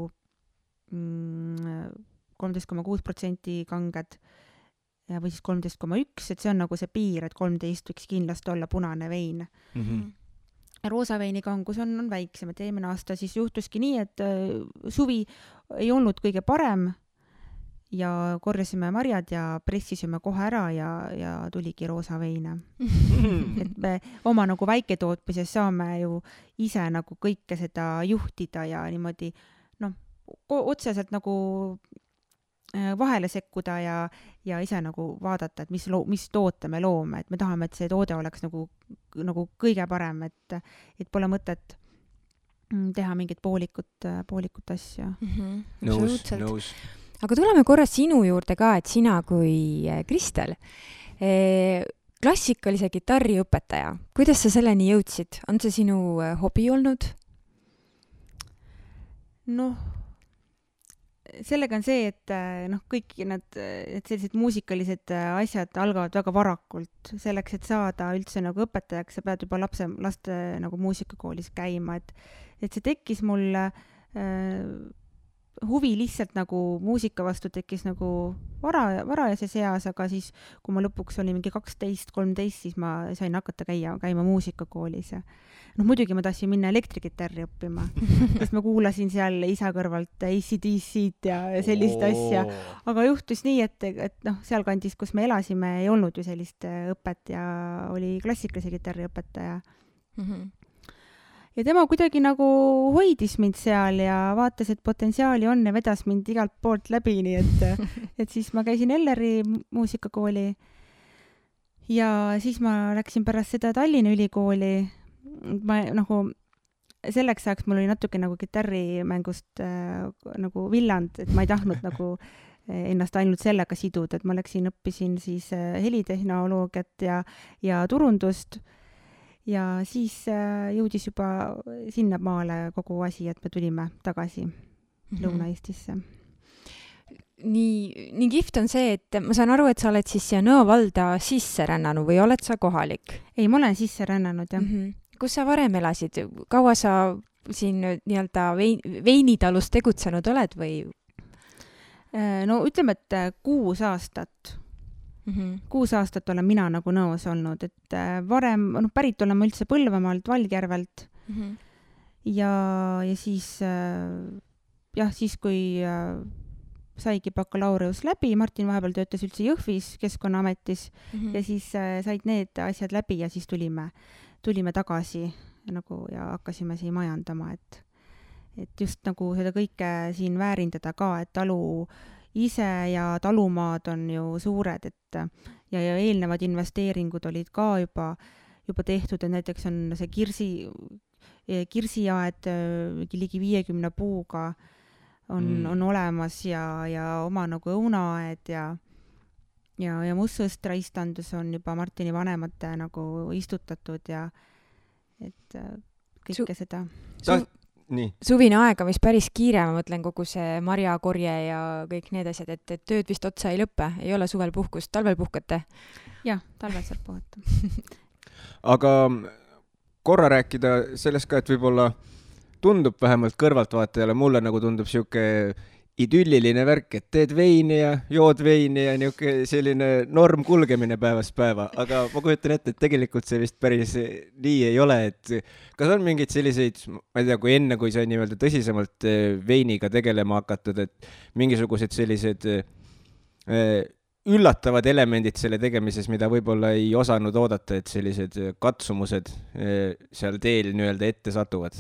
13,6% kanged või siis 13,1, et see on nagu see piir, et 13 võiks kindlasti olla punane vein. Roosa veini kangus on väiksem, et eelmine aasta siis juhtuski nii, et suvi ei olnud kõige parem ja korjasime marjad ja pressisime kohe ära ja tuligi roosa veine. Et me oma nagu väiketootmises saame ju ise nagu kõike seda juhtida ja niimoodi otseselt nagu vahele sekkuda ja ise nagu vaadata, et mis toote me loome, et me tahame, et see toode oleks nagu kõige parem, et pole mõtet teha mingit poolikut asja. Nõus. Aga tuleme korra sinu juurde ka, et sina kui Kristel, klassikalise kitarri õpetaja, kuidas sa selleni jõudsid? On see sinu hobi olnud? Sellega on see, et kõik et sellised muusikalised asjad algavad väga varakult. Selleks, et saada üldse nagu õpetajaks, sa pead juba laste nagu muusikakoolis käima, et see tekkis mulle huvi lihtsalt nagu muusika vastu tekkis nagu varajases eas, aga siis, kui ma lõpuks olin mingi 12-13, siis ma sain hakata käima muusikakoolis. Muidugi ma tahtsin minna elektrikitarri õppima, sest ma kuulasin seal isa kõrvalt AC/DC-d ja sellist asja. Aga juhtus nii, et seal kandis, kus me elasime, ei olnud ju sellist õpet ja oli klassikalise kitarri õpetaja. Ja tema kuidagi nagu hoidis mind seal ja vaatas, et potentsiaali on ja vedas mind igalt poolt läbi, nii et siis ma käisin Elleri muusikakooli ja siis ma läksin pärast seda Tallinna ülikooli. Ma nagu selleks ajaks mul oli natuke nagu kitarrimängust nagu villand, et ma ei tahtnud nagu ennast ainult sellega siduda, et ma õppisin siis helitehnoloogiat ja turundust. Ja siis jõudis juba sinna maale kogu asi, et me tulime tagasi Lõuna-Eestisse. Nii kihvt on see, et ma saan aru, et sa oled siis siia Nõo valda sisse rännanud või oled sa kohalik? Ei, ma olen sisse rännanud, jah. Kus sa varem elasid? Kaua sa siin nii-öelda veinitalus tegutsenud oled või? No ütleme, et 6 aastat. 6 aastat olen mina nagu Nõos olnud, et varem, pärit olen ma üldse Põlvamaalt, Valgjärvelt ja siis siis kui saigi bakalaureus läbi, Martin vahepeal töötas üldse Jõhvis Keskkonnaametis ja siis said need asjad läbi ja siis tulime tagasi nagu ja hakkasime siin majandama, et just nagu seda kõike siin väärindada ka, et talu ise ja talumaad on ju suured, et ja eelnevad investeeringud olid ka juba tehtud, et näiteks on see kirsiaed ligi 50 puuga on olemas ja oma nagu õunaaed ja mustsõstraistandus on juba Martini vanemate nagu istutatud ja et kõike seda. Nii. Suvine aega, mis päris kiire, ma mõtlen kogu see marjakorje ja kõik need asjad, et tööd vist otsa ei lõppe, ei ole suvel puhkust, talvel puhkate? Jah, talvel saab puhata. Aga korra rääkida sellest ka, et võib-olla tundub vähemalt kõrvaltvaatajale, mulle nagu tundub siuke idülliline värk, et teed veini ja jood veini ja niuke selline norm kulgemine päevast päeva, aga ma kujutan ette, et tegelikult see vist päris nii ei ole, et kas on mingeid selliseid, ma ei tea, kui enne, kui sai nii-öelda tõsisemalt veiniga tegelema hakatud, et mingisugused sellised üllatavad elemendid selle tegemises, mida võib-olla ei osanud oodata, et sellised katsumused seal teel nii-öelda ette satuvad?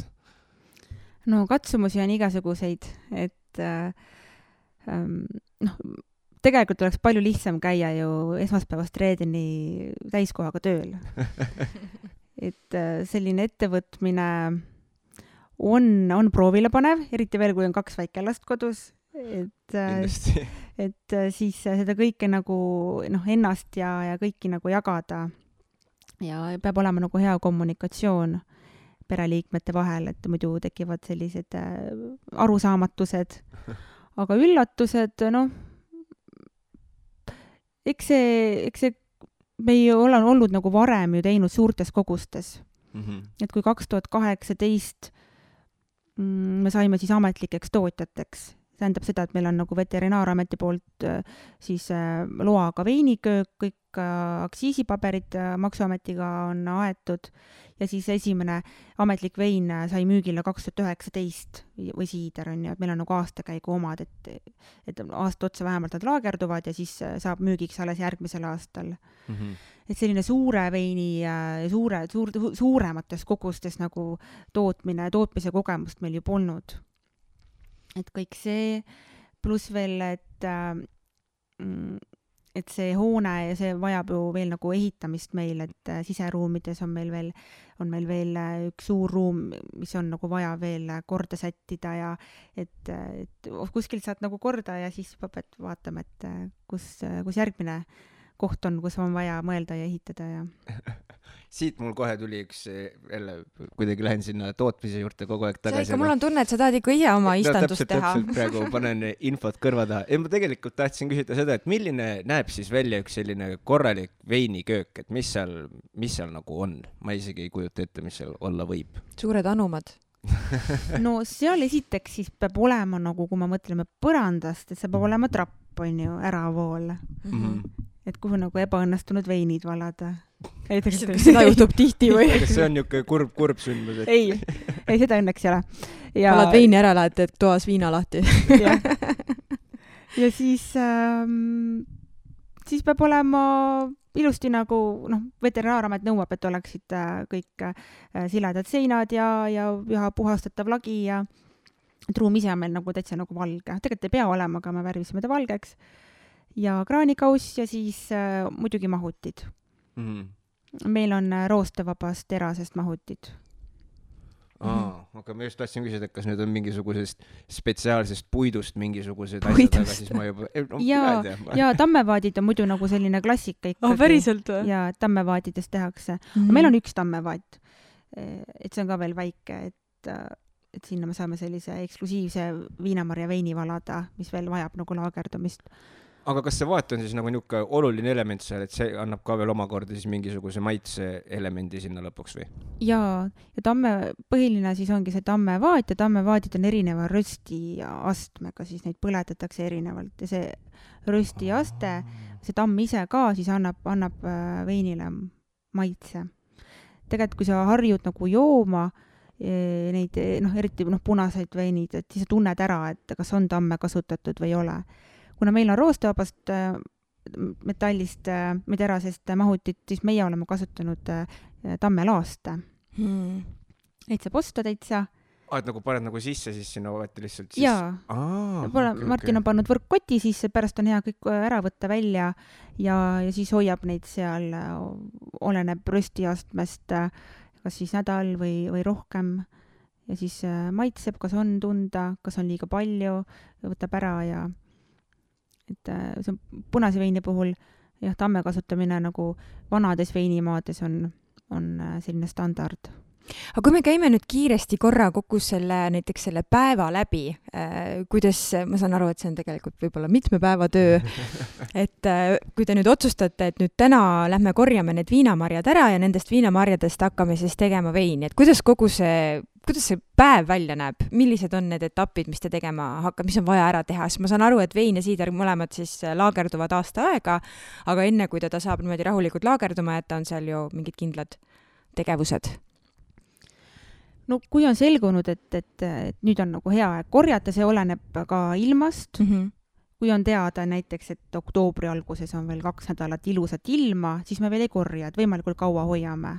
No katsumusi on igasuguseid, et tegelikult oleks palju lihtsam käia ju esmaspäevast reedeni täiskohaga tööl. Et selline ettevõtmine on proovile panev, eriti veel, kui on 2 väikelast kodus. Et siis seda kõike nagu ennast ja kõiki nagu jagada ja peab olema nagu hea kommunikatsioon pereliikmete vahel, et muidu tekivad sellised arusaamatused. Aga üllatused, eks see me ei ole olnud nagu varem ju teinud suurtes kogustes. Et kui 2018 me saime siis ametlikeks tootjateks, tähendab seda, et meil on nagu Veterinaarameti poolt siis loaga veiniköök, kõik aktsiisipaberid Maksuametiga on aetud ja siis esimene ametlik vein sai müügile 2019 või siider on ju, et meil on nagu aastakäigu omad, et aasta otsa vähemalt nad laagerduvad ja siis saab müügiks alles järgmisel aastal. Et selline suure veini suuremates kogustes nagu tootmise kogemust meil ju polnud. Et kõik see, pluss veel, et see hoone ja see vajab ju veel nagu ehitamist meil, et siseruumides on meil veel üks suur ruum, mis on nagu vaja veel korda sättida ja et kuskilt saad nagu korda ja siis pead vaatama, et kus järgmine koht on, kus on vaja mõelda ja ehitada ja siit mul kohe tuli üks, jälle kuidagi lähen sinna tootmise juurde kogu aeg tagasi. See ikka, mul on tunne, et sa tahad ikka ise oma istandust teha. Täpselt, praegu panen infot kõrva taha. Ja ma tegelikult tahtsin küsida seda, et milline näeb siis välja üks selline korralik veiniköök, et mis seal nagu on? Ma isegi ei kujuta ette, mis seal olla võib. Suured anumad. No seal esiteks siis peab olema nagu, kui me mõtleme põrandast, et see peab olema trapp, on ju, äravool. Et kuhu nagu ebaõnnestunud veinid valada. Seda juhtub tihti või? Kas see on niuke kurb sündmus? Ei, seda õnneks ei ole. Valad veini ära, lähed, et toas viina lahti. Ja siis peab olema ilusti nagu, Veterinaaramet nõuab, et oleksid kõik siledad seinad ja puhastatav lagi ja ruum ise on meil nagu täitsa nagu valge. Tegelikult ei pea olema, aga me värvisime ta valgeks. Ja kraanikauss ja siis muidugi mahutid. Meil on roostevabast terasest mahutid. Aga ma just tahtsin küsida, et kas nüüd on mingisugusest spetsiaalsest puidust mingisugused asjad, aga siis ma juba... Ja tammevaadid on muidu nagu selline klassika ikkagi. Päriselt või? Ja tammevaadidest tehakse. Meil on üks tammevaat. Et see on ka veel väike, et sinna me saame sellise eksklusiivse viinamarja veini valada, mis veel vajab nagu laagerdumist. Aga kas see vaat on siis nagu niuke oluline element seal, et see annab ka veel omakorda siis mingisuguse maitse elemendi sinna lõpuks või? Ja põhiline siis ongi see tammevaat ja tammevaadid on erineva rösti astmega, siis neid põletatakse erinevalt ja see rösti aste, see tamm ise ka siis annab veinile maitse. Tegelikult kui sa harjud nagu jooma neid, eriti punaseid veinid, et siis sa tunned ära, et kas on tamme kasutatud või ei ole. Kuna meil on roostevabast metallist või terasest mahutit, siis meie oleme kasutanud tammelaaste. Neid saab osta täitsa. Et nagu paned nagu sisse, siis sinna võeti lihtsalt siis? Jaa. Martin on pannud võrkkoti sisse, pärast on hea kõik ära võtta välja ja siis hoiab neid seal, oleneb röstiastmest, kas siis nädal või rohkem. Ja siis maitseb, kas on tunda, kas on liiga palju, võtab ära ja et see on punase veini puhul ja tamme kasutamine nagu vanades veinimaades on selline standard. Aga kui me käime nüüd kiiresti korra kokku näiteks selle päeva läbi, kuidas, ma saan aru, et see on tegelikult võib-olla mitme päeva töö, et kui te nüüd otsustate, et nüüd täna lähme korjame need viinamarjad ära ja nendest viinamarjadest hakkame siis tegema veini, et kuidas kogu see kuidas see päev välja näeb, millised on need etapid, mis te tegema hakkab, mis on vaja ära teha, sest ma saan aru, et vein ja siider mõlemad siis laagerduvad aasta aega, aga enne kui ta saab niimoodi rahulikult laagerduma jätta, on seal ju mingid kindlad tegevused. No kui on selgunud, et nüüd on nagu hea aeg korjata, see oleneb ka ilmast. Kui on teada näiteks, et oktoobri alguses on veel 2 nädalat ilusat ilma, siis me veel ei korja, et võimalikult kaua hoiame.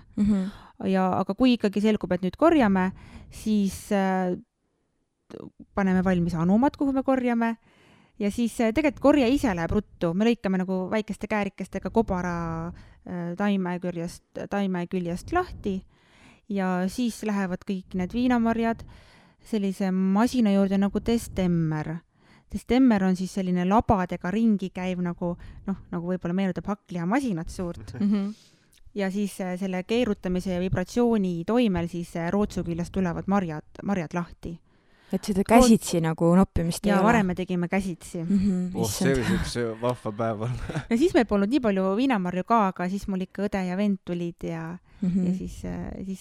Aga kui ikkagi selgub, et nüüd korjame, siis paneme valmis anumad, kuhu me korjame ja siis tegelikult korje ise läheb ruttu. Me lõikame nagu väikeste käärikestega kobara taime küljest lahti ja siis lähevad kõik need viinamarjad sellise masina juurde nagu destemmer. Destemmer on siis selline labadega ringi käiv nagu võib-olla meenutab hakkliha-masinat suurt. Ja siis selle keerutamise ja vibratsiooni toimel siis rootsu küljest tulevad marjad lahti. Et seda käsitsi nagu noppimist ei ole? Ja varem me tegime käsitsi. See oli üks vahva päev. Ja siis meil polnud nii palju viinamarju ka, aga siis mul ikka õde ja vend tulid ja siis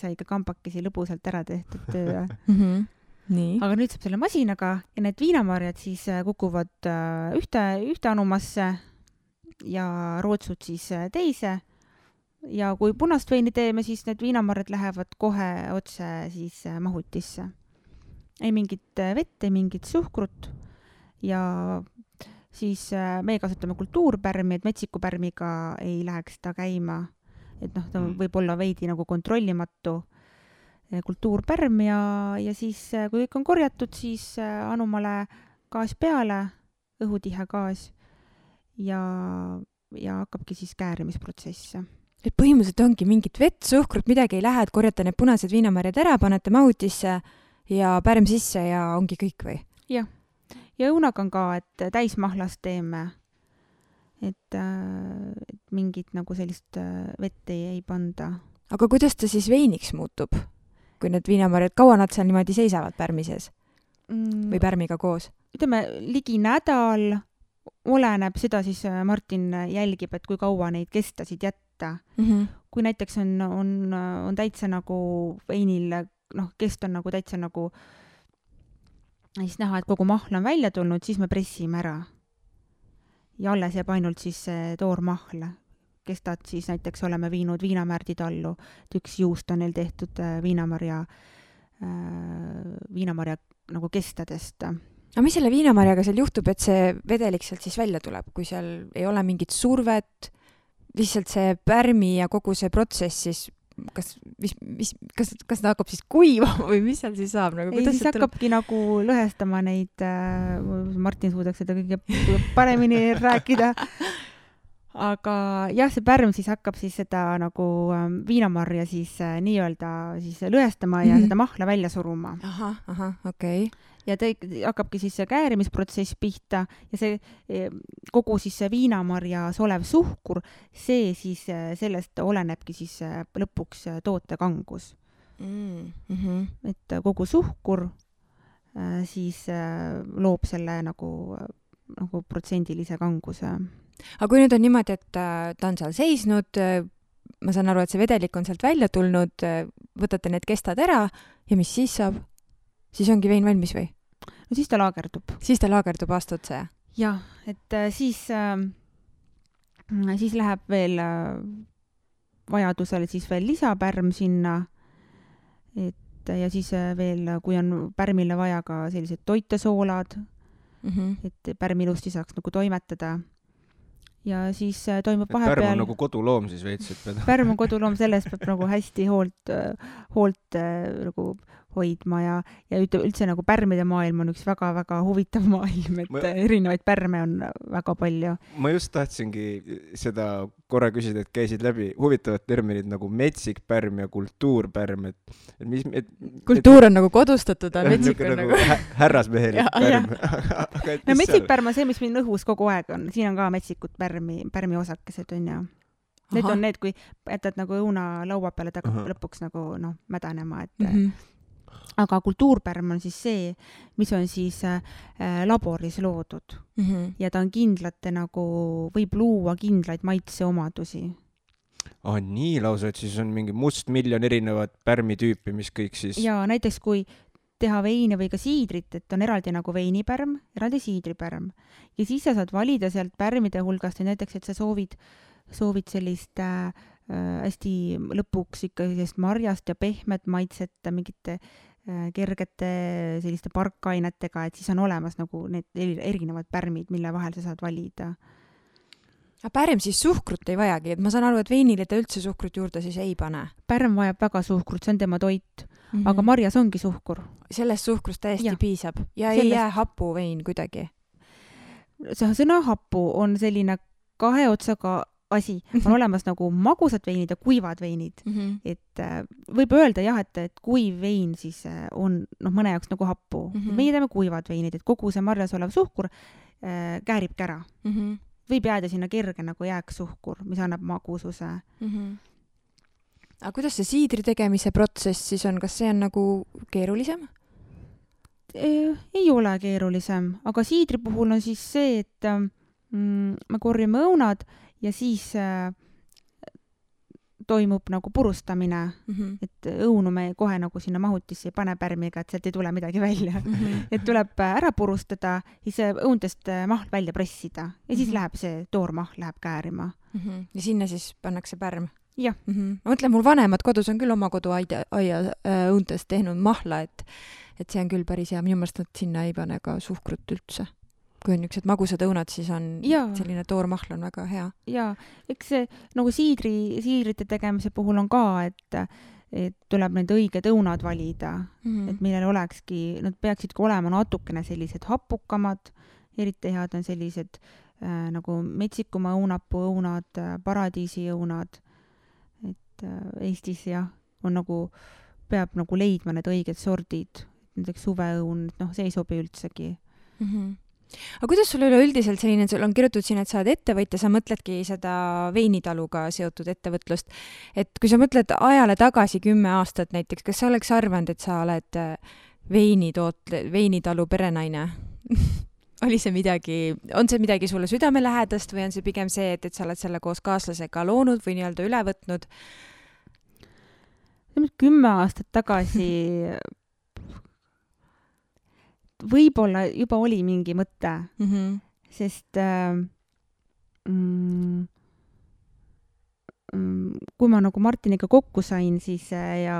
sai ikka kambakesi lõbusalt ära tehtud töö. Nii. Aga nüüd saab selle masinaga ja need viinamarjad siis kukuvad ühte anumasse ja rootsud siis teise. Ja kui punast veini teeme, siis need viinamarjad lähevad kohe otse siis mahutisse. Ei mingit vett, ei mingit suhkrut ja siis me kasutame kultuurpärmi, et metsikupärmiga ei läheks ta käima. Et ta võib olla veidi nagu kontrollimatu kultuurpärm ja siis kui kõik on korjatud, siis anumale gaas peale, õhutihe gaas ja hakkabki siis käärimisprotsess. Et põhimõtteliselt ongi mingit vett, suhkrut, midagi ei lähe, et korjate need punased viinamarjad ära, panete mahutisse ja pärm sisse ja ongi kõik või? Jah. Ja õunaga on ka, et täismahlast teeme, et mingit nagu sellist vett ei panda. Aga kuidas ta siis veiniks muutub? Kui need viinamarjad, kaua nad seal niimoodi seisavad pärmi sees? Või pärmiga koos? Ütleme, ligi nädal oleneb, seda siis Martin jälgib, et kui kaua neid kestasid jätta. Kui näiteks on täitsa nagu veinil, kest on nagu täitsa nagu siis näha, et kogu mahl on välja tulnud, siis me pressime ära. Ja alles jääb ainult siis toormahl. Kestad siis näiteks oleme viinud viinamärdid allu, et üks juust on neil tehtud viinamarja nagu kestadest. Aga mis selle viinamarjaga seal juhtub, et see vedelik sealt siis välja tuleb, kui seal ei ole mingit survet, lihtsalt see pärmi ja kogu see protsess siis, kas ta hakkab siis kuivama või mis seal siis saab? Nagu, ei, siis hakkabki nagu lõhestama neid, Martin suudaks seda kõige paremini rääkida. Aga jah, see pärm siis hakkab siis seda nagu viinamarja siis nii-öelda siis lõhestama ja seda mahla välja suruma. Aha, okei. Ja hakkabki siis see käärimisprotsess pihta ja see kogu siis see viinamarjas olev suhkur, see siis sellest olenebki siis lõpuks toote kangus. Et kogu suhkur siis loob selle nagu protsendilise kanguse. Aga kui nüüd on niimoodi, et ta on seal seisnud, ma saan aru, et see vedelik on sealt välja tulnud, võtate need kestad ära ja mis siis saab? Siis ongi vein valmis või? No siis ta laagerdub. Siis ta laagerdub aasta otsa, jah? Jah, et siis läheb veel vajadusel siis veel lisapärm sinna, ja siis veel, kui on pärmile vaja ka sellised toitesoolad, et pärm ilusti saaks nagu toimetada. Ja siis toimub vahepeal... Pärm on nagu koduloom siis veits, et Pärm on koduloom, sellest peab nagu hästi hoolt nagu hoidma ja üldse nagu pärmide maailm on üks väga-väga huvitav maailm, et erinevaid pärme on väga palju. Ma just tahtsingi seda korra küsida, et käisid läbi huvitavad terminid nagu metsikpärm ja kultuurpärm, kultuur on nagu kodustatud, aga metsik on nagu härrasmehelik pärm. No metsikpärm on see, mis meil õhus kogu aeg on, siin on ka metsikud pärmi osakesed on ja need on need, kui jätad nagu õuna laua peale, ta hakkab lõpuks nagu mädanema, et aga kultuurpärm on siis see, mis on siis laboris loodud ja ta on kindlate nagu, võib luua kindlaid maitseomadusi. Nii lausa, et siis on mingi mustmiljon erinevat pärmitüüpi, mis kõik siis... Ja näiteks kui teha veini või ka siidrit, et on eraldi nagu veinipärm, eraldi siidripärm. Ja siis sa saad valida sealt pärmide hulgast, näiteks, et sa soovid sellist hästi lõpuks ikka sellist marjast ja pehmet maitset mingite kergete selliste parkainetega, et siis on olemas nagu need erinevad pärmid, mille vahel sa saad valida. Aga pärm siis suhkrut ei vajagi, et ma saan aru, et veinile ta üldse suhkrut juurde siis ei pane. Pärm vajab väga suhkrut, see on tema toit, aga marjas ongi suhkur. Sellest suhkrust täiesti piisab ja ei jää hapu vein kuidagi. See sõna hapu on selline kahe otsaga asi. On olemas nagu magusad veinid ja kuivad veinid. Et võib öelda jah, et kuiv vein siis on mõne jaoks nagu happu. Meie teeme kuivad veinid, et kogu see marjas olev suhkur kääribki ära. Võib jääda sinna kerge nagu jääksuhkur, mis annab magususe. Aga kuidas see siidri tegemise protsess siis on? Kas see on nagu keerulisem? Ei ole keerulisem, aga siidri puhul on siis see, et me korjame õunad ja siis toimub nagu purustamine, et õunu me kohe nagu sinna mahutisse ei pane pärmiga, et sealt ei tule midagi välja. Et tuleb ära purustada, siis õuntest mahl välja pressida ja siis läheb see toormahl läheb käärima. Ja sinna siis pannakse pärm? Jah. Ma mõtlen, mul vanemad kodus on küll oma koduaia õuntest tehnud mahla, et see on küll päris hea. Minu meelest nad sinna ei pane ka suhkrut üldse. Kui on niisugused magusad õunad, siis on selline toormahl on väga hea. Ja, eks see nagu siidrite tegemise puhul on ka, et tuleb need õiged õunad valida, et millel olekski, nad peaksidki olema natukene sellised hapukamad, eriti head on sellised nagu metsikuma õunapuu õunad, paradiisi õunad, et Eestis on nagu, peab nagu leidma need õiged sordid, näiteks suveõun, see ei sobi üldsegi. Aga kuidas sul üleüldiselt selline, sul on kirjutatud siin, et sa oled ettevõtja, sa mõtledki seda veinitaluga seotud ettevõtlust, et kui sa mõtled ajale tagasi 10 aastat näiteks, kas sa oleks arvanud, et sa oled veinitalu perenaine? Oli see midagi, on see midagi sulle südamelähedast või on see pigem see, et sa oled selle koos kaaslasega loonud või nii-öelda üle võtnud? 10 aastat tagasi võib-olla juba oli mingi mõte, sest kui ma nagu Martiniga kokku sain, siis ja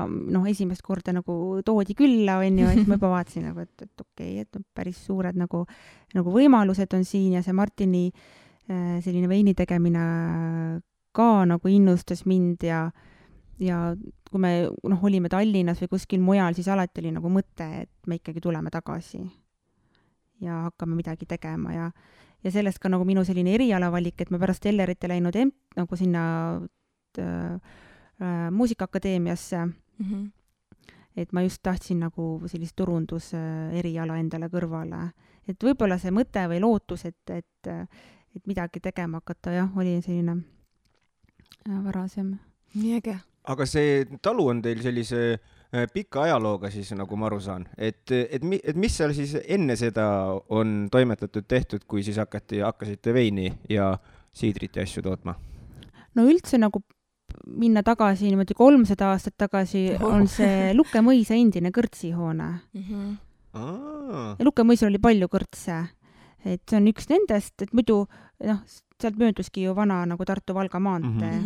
esimest korda nagu toodi külla, siis ma juba vaatasin, et okei, et päris suured nagu võimalused on siin ja see Martini selline veini tegemine ka nagu innustas mind ja kui me olime Tallinnas või kuskil mujal, siis alati oli nagu mõte, et me ikkagi tuleme tagasi ja hakkame midagi tegema ja sellest ka nagu minu selline erialavalik, et ma pärast Ellerite läinud nagu sinna muusikaakadeemiasse, et ma just tahtsin nagu sellist turundus eriala endale kõrvale. Et võib-olla see mõte või lootus, et midagi tegema hakata, oli selline varasem. Nii äge. Aga see talu on teil sellise pika ajalooga siis, nagu ma aru saan. Et mis seal siis enne seda on toimetatud tehtud, kui siis hakkasite veini ja siidrit ja asju tootma? No üldse nagu minna tagasi, niimoodi 300 aastat tagasi on see Lukke mõisa endine kõrtsihoone. Ja Lukke mõisal oli palju kõrtse. Et see on üks nendest, et muidu sealt mööduski ju vana nagu Tartu-Valga maantee.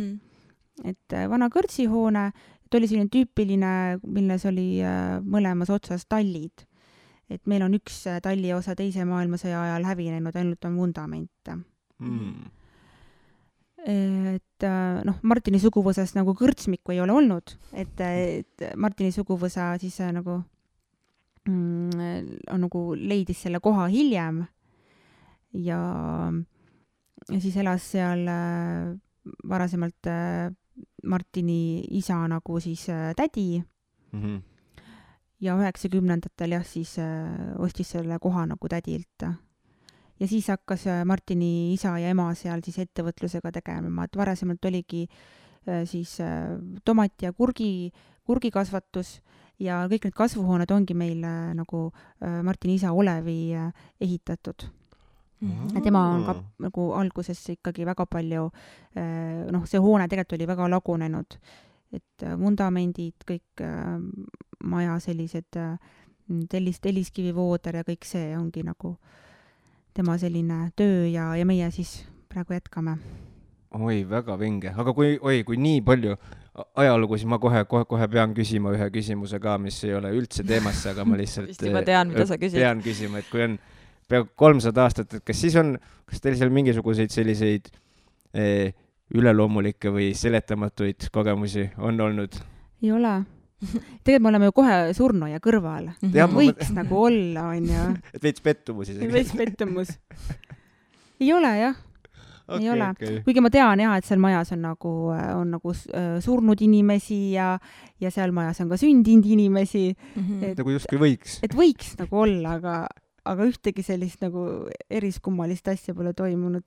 Et vana kõrtsihoone, et oli selline tüüpiline, milles oli mõlemas otsas tallid. Et meil on üks talli osa teise maailmasõja ajal hävinenud, ainult on vundament. Et Martini suguvõsas nagu kõrtsmikku ei ole olnud, et Martini suguvõsa siis nagu on nagu leidis selle koha hiljem ja siis elas seal varasemalt Martini isa nagu siis tädi ja 90-ndatel siis ostis selle koha nagu tädilt. Ja siis hakkas Martini isa ja ema seal siis ettevõtlusega tegema, et varasemalt oligi siis tomati ja kurgikasvatus ja kõik need kasvuhooned ongi meil nagu Martini isa Olevi ehitatud. Et tema on ka nagu alguses ikkagi väga palju, see hoone tegelikult oli väga lagunenud, et vundamendid, kõik maja sellised telliskivivooder ja kõik see ongi nagu tema selline töö ja meie siis praegu jätkame. Oi, väga vinge. Aga kui nii palju ajalugu, siis ma kohe pean küsima ühe küsimuse ka, mis ei ole üldse teemasse, aga ma lihtsalt tean, mida sa küsid. Pean küsima, et kui on peaaegu 300 aastat, et kas teil seal mingisuguseid selliseid üleloomulikke või seletamatuid kogemusi on olnud? Ei ole. Tegelikult me oleme ju kohe surnuaia kõrval. Võiks nagu olla, on ju. Et veits pettumus isegi. Veits pettumus. Ei ole, jah. Ei ole. Kuigi ma tean, jah, et seal majas on nagu surnud inimesi ja seal majas on ka sündinud inimesi. Nagu justkui võiks. Et võiks nagu olla, aga ühtegi sellist nagu eriskummalist asja pole toimunud.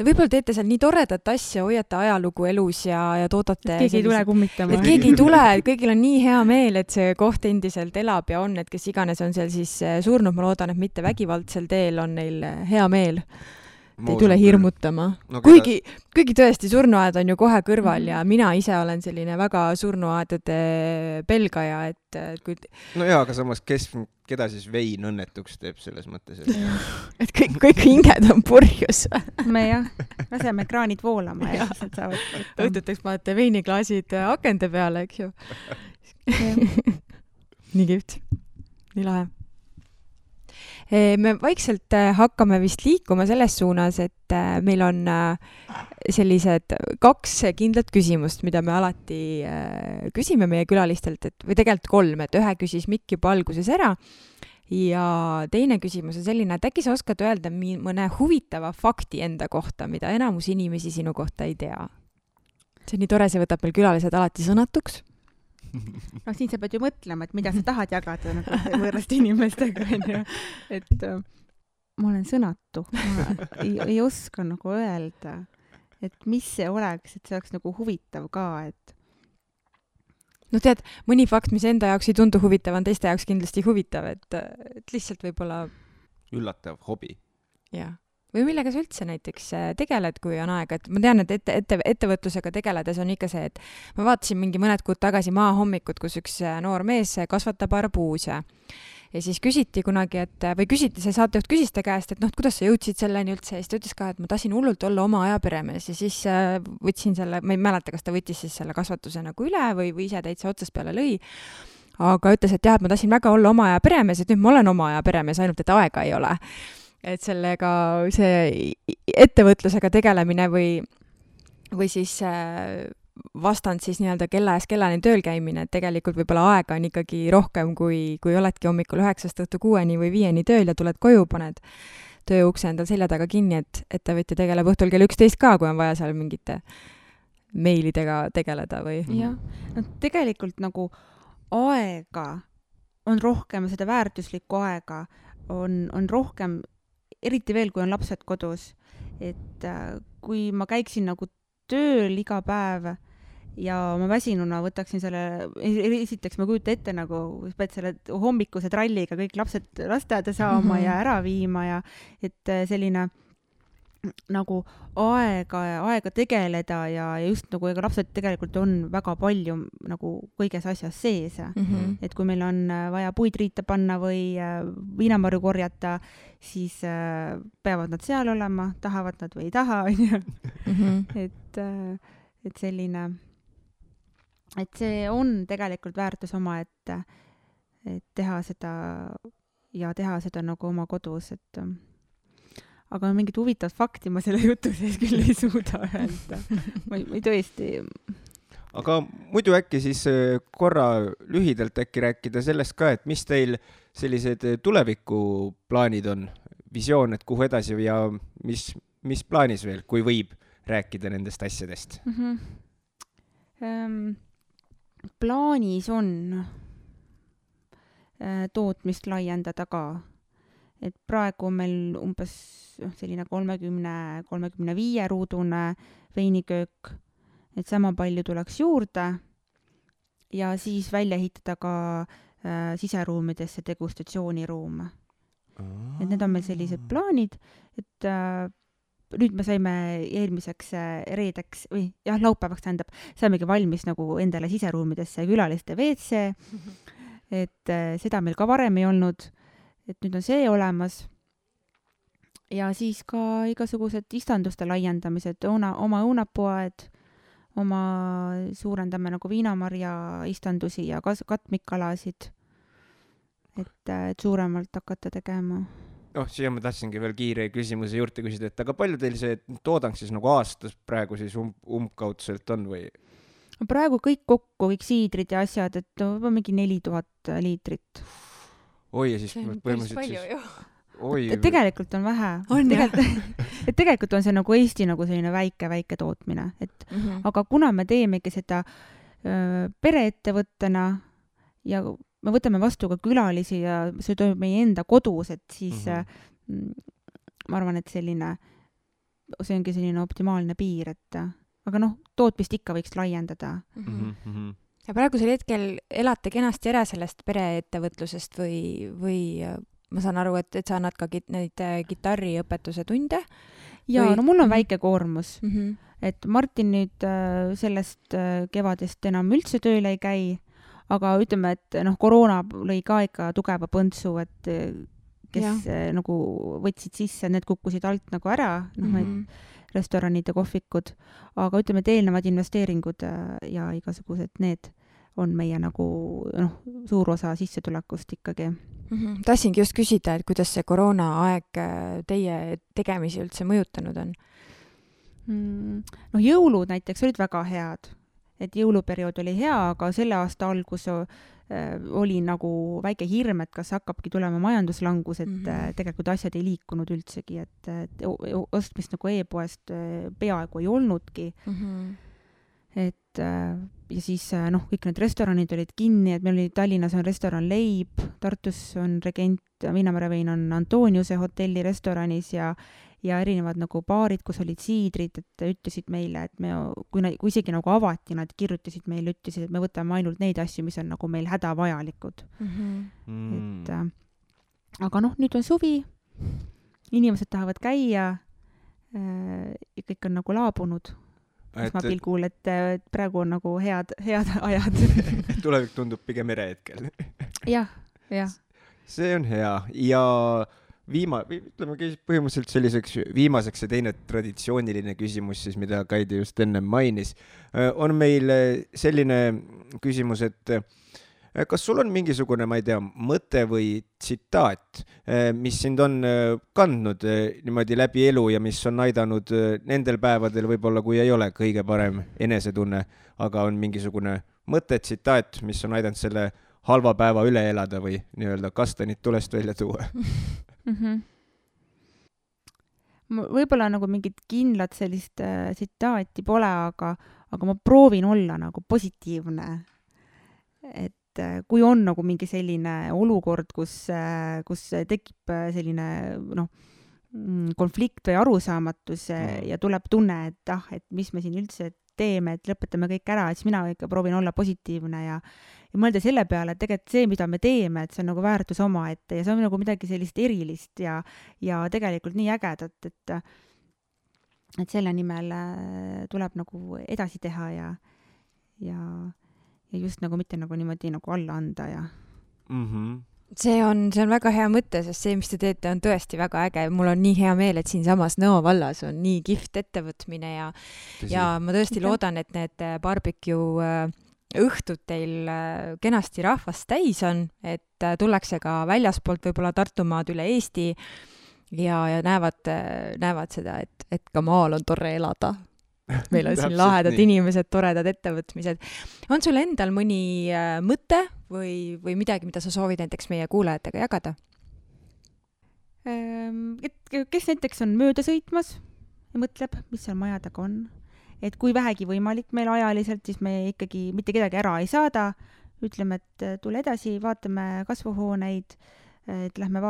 Võib-olla teete seal nii toredat asja, hoiate ajalugu elus ja toodate... Keegi ei tule kummitama. Et keegi ei tule, kõigil on nii hea meel, et see koht endiselt elab ja on, et kes iganes on seal siis surnud, ma loodan, et mitte vägivaldsel teel on neil hea meel. Ei tule hirmutama. No, kuigi tõesti, surnuaed on ju kohe kõrval ja mina ise olen selline väga surnuaedade pelgaja, et kui... No jaa, aga samas, keda siis vein õnnetuks teeb selles mõttes? Et kõik hinged on purjus. Me jah, laseme kraanid voolama ja siis nad saavad... Õhtuteks panete veiniklaasid akende peale, eks ju. Nii kihvt. Nii lahe. Me vaikselt hakkame vist liikuma selles suunas, et meil on sellised 2 kindlat küsimust, mida me alati küsime meie külalistelt, või tegelikult 3, et ühe küsis Mikk juba alguses ära ja teine küsimus on selline, et äkki sa oskad öelda mõne huvitava fakti enda kohta, mida enamus inimesi sinu kohta ei tea. See on nii tore, see võtab meil külalised alati sõnatuks. No siin sa pead ju mõtlema, et mida sa tahad jagada nagu võõraste inimestega, et ma olen sõnatu. Ma ei oska nagu öelda, et mis see oleks, et see oleks nagu huvitav ka, et... No tead, mõni fakt, mis enda jaoks ei tundu huvitav, on teiste jaoks kindlasti huvitav, et lihtsalt võib-olla... Üllatav hobi. Jah. Või millega sa üldse näiteks tegeled, kui on aega, et ma tean, et ettevõtlusega tegeledes on ikka see, et ma vaatasin mõned kuud tagasi maahommikut, kus üks noor mees kasvatab arbuuse ja siis küsiti kunagi, see saatejuht küsis ta käest, et kuidas sa jõudsid selleni üldse ja siis ta ütles ka, et ma tahtsin hullult olla oma aja peremees ja siis võtsin selle, ma ei mäleta, kas ta võttis siis selle kasvatuse nagu üle või ise täitsa otsast peale lõi, aga ütles, et jah, et ma tahtsin väga olla oma aja peremees, et nüüd ma olen oma aja peremees, ainult et aega ei ole. Et sellega see ettevõtlusega tegelemine või siis vastand siis nii-öelda kella ees kellani tööl käimine, et tegelikult võib-olla aega on ikkagi rohkem, kui oledki hommikul 9 õhtu 6 või 5 tööl ja tuled koju, paned tööukse endal selja taga kinni, et ettevõtja tegeleb õhtul kell 11 ka, kui on vaja seal mingite meilidega tegeleda või... Jah, no tegelikult nagu aega on rohkem, seda väärtuslikku aega on rohkem, eriti veel, kui on lapsed kodus, et kui ma käiksin nagu tööl iga päev ja ma väsinuna võtaksin selle, esiteks ma kujuta ette nagu, pead selle hommikuse tralliga kõik lapsed lasteaeda saama ja ära viima ja et selline nagu aega tegeleda ja just nagu ega lapsed tegelikult on väga palju nagu kõiges asjas sees. Et kui meil on vaja puid riita panna või viinamarju korjata, siis peavad nad seal olema, tahavad nad või ei taha. Et selline, et see on tegelikult väärtus oma, et teha seda nagu oma kodus, et aga mingit huvitavat fakti ma selle jutu sees küll ei suuda öelda. Ma ei tõesti... Aga muidu äkki siis korra lühidalt äkki rääkida sellest ka, et mis teil sellised tulevikuplaanid on, visioon, et kuhu edasi ja mis plaanis veel, kui võib rääkida nendest asjadest? Plaanis on tootmist laiendada ka. Et praegu on meil umbes selline 30-35 ruudune veiniköök, et sama palju tuleks juurde ja siis välja ehitada ka siseruumidesse degustatsiooniruum. et need on meil sellised plaanid, et nüüd me saime eelmiseks reedeks või laupäevaks saimegi valmis nagu endale siseruumidesse külaliste WC, et seda meil ka varem ei olnud, et nüüd on see olemas. Ja siis ka igasugused istanduste laiendamised, oma õunapoed, oma suurendame nagu viinamarja istandusi ja katmikalasid, et suuremalt hakata tegema. Siia ma tahtsingi veel kiire küsimuse juurde küsida, et aga palju teil see toodang siis nagu aastas praegu siis umbkaudselt on või? Praegu kõik kokku, kõik siidrid ja asjad, et mingi 4000 liitrit. Oi, ja siis põhimõtteliselt palju ju. Tegelikult on vähe. Et tegelikult on see nagu Eesti nagu selline väike tootmine, et aga kuna me teemegi seda pereettevõttena ja me võtame vastu ka külalisi ja see toimub meie enda kodus, et siis ma arvan, et see ongi selline optimaalne piir, et aga tootmist ikka võiks laiendada. Ja praegusel hetkel elate kenasti ära sellest pereettevõtlusest või ma saan aru, et sa annad ka neid kitarriõpetuse tunde? Jaa, mul on väike koormus. Et Martin nüüd sellest kevadest enam üldse tööle ei käi, aga ütleme, et koroona lõi ka ikka tugeva põntsu, et kes nagu võtsid sisse, need kukkusid alt nagu ära, restoranid ja kohvikud, aga ütleme, et eelnevad investeeringud ja igasugused need on meie nagu suur osa sissetulekust ikkagi. Tahtsingi just küsida, et kuidas see koroonaaeg teie tegemisi üldse mõjutanud on? Jõulud näiteks olid väga head, et jõuluperiood oli hea, aga selle aasta algus oli nagu väike hirm, et kas hakkabki tulema majanduslangus, et tegelikult asjad ei liikunud üldsegi, et ostmist nagu e-poest peaaegu ei olnudki. Et ja siis kõik need restoranid olid kinni, et meil oli Tallinnas on restoran Leib, Tartus on Regent, Viinamarjavein on Antoniuse hotelli restoranis ja erinevad nagu baarid, kus olid siidrid, et ütlesid meile, et kui isegi nagu avati, nad kirjutasid meile, ütlesid, et me võtame ainult neid asju, mis on nagu meil hädavajalikud. Et, aga nüüd on suvi, inimesed tahavad käia ja kõik on nagu laabunud. Pilgul, et praegu on nagu head ajad. Tulevik tundub pigem hetkel. Jah. See on hea ja ütleme põhimõtteliselt selliseks viimaseks ja teine traditsiooniline küsimus, siis, mida Kaidi just enne mainis, on meil selline küsimus, et kas sul on mingisugune, ma ei tea, mõte või tsitaat, mis sind on kandnud niimoodi läbi elu ja mis on aidanud nendel päevadel võib-olla, kui ei ole kõige parem enesetunne, aga on mingisugune mõte, tsitaat, mis on aidanud selle halva päeva üle elada või nii-öelda kastanid tulest välja tuua? Võib-olla nagu mingit kindlat sellist tsitaati pole, aga ma proovin olla nagu positiivne, et kui on nagu mingi selline olukord, kus tekib selline konflikt või arusaamatus ja tuleb tunne, et mis me siin üldse teeme, et lõpetame kõik ära, siis mina ikka proovin olla positiivne ja mõelda selle peale, et tegelikult see, mida me teeme, et see on nagu väärtus omaette ja see on nagu midagi sellist erilist ja tegelikult nii ägedat, et selle nimel tuleb nagu edasi teha ja just nagu mitte nagu niimoodi nagu alla anda ja See on väga hea mõte, sest see, mis te teete, on tõesti väga äge. Mul on nii hea meel, et siinsamas Nõo vallas on nii kihvt ettevõtmine ja ma tõesti loodan, et need barbecue õhtud teil kenasti rahvast täis on, et tullakse ka väljaspoolt võib-olla Tartumaad üle Eesti ja näevad seda, et ka maal on tore elada. Meil on siin lahedad inimesed, toredad ettevõtmised. On sul endal mõni mõte või midagi, mida sa soovid näiteks meie kuulajatega jagada? Kes näiteks on mööda sõitmas ja mõtleb, mis seal maja taga on. Et kui vähegi võimalik meil ajaliselt, siis me ikkagi mitte kedagi ära ei saada. Ütleme, et tule edasi, vaatame kasvuhooneid, et lähme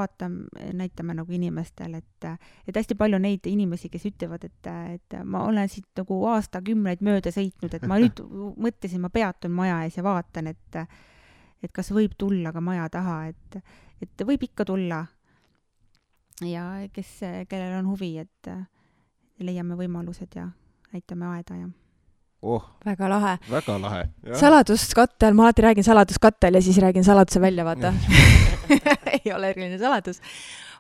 näitame nagu inimestel, et hästi palju neid inimesi, kes ütlevad, et ma olen siit nagu aastakümneid mööda sõitnud, et ma nüüd mõtlesin, ma peatun maja ees ja vaatan, et kas võib tulla ka maja taha, et võib ikka tulla. ja kellel on huvi, et leiame võimalused ja näitame aeda ja väga lahe. Väga lahe. Saladuskattel, ma alati räägin saladuskattel ja siis räägin saladuse välja, vaata. Ei ole eriline saladus.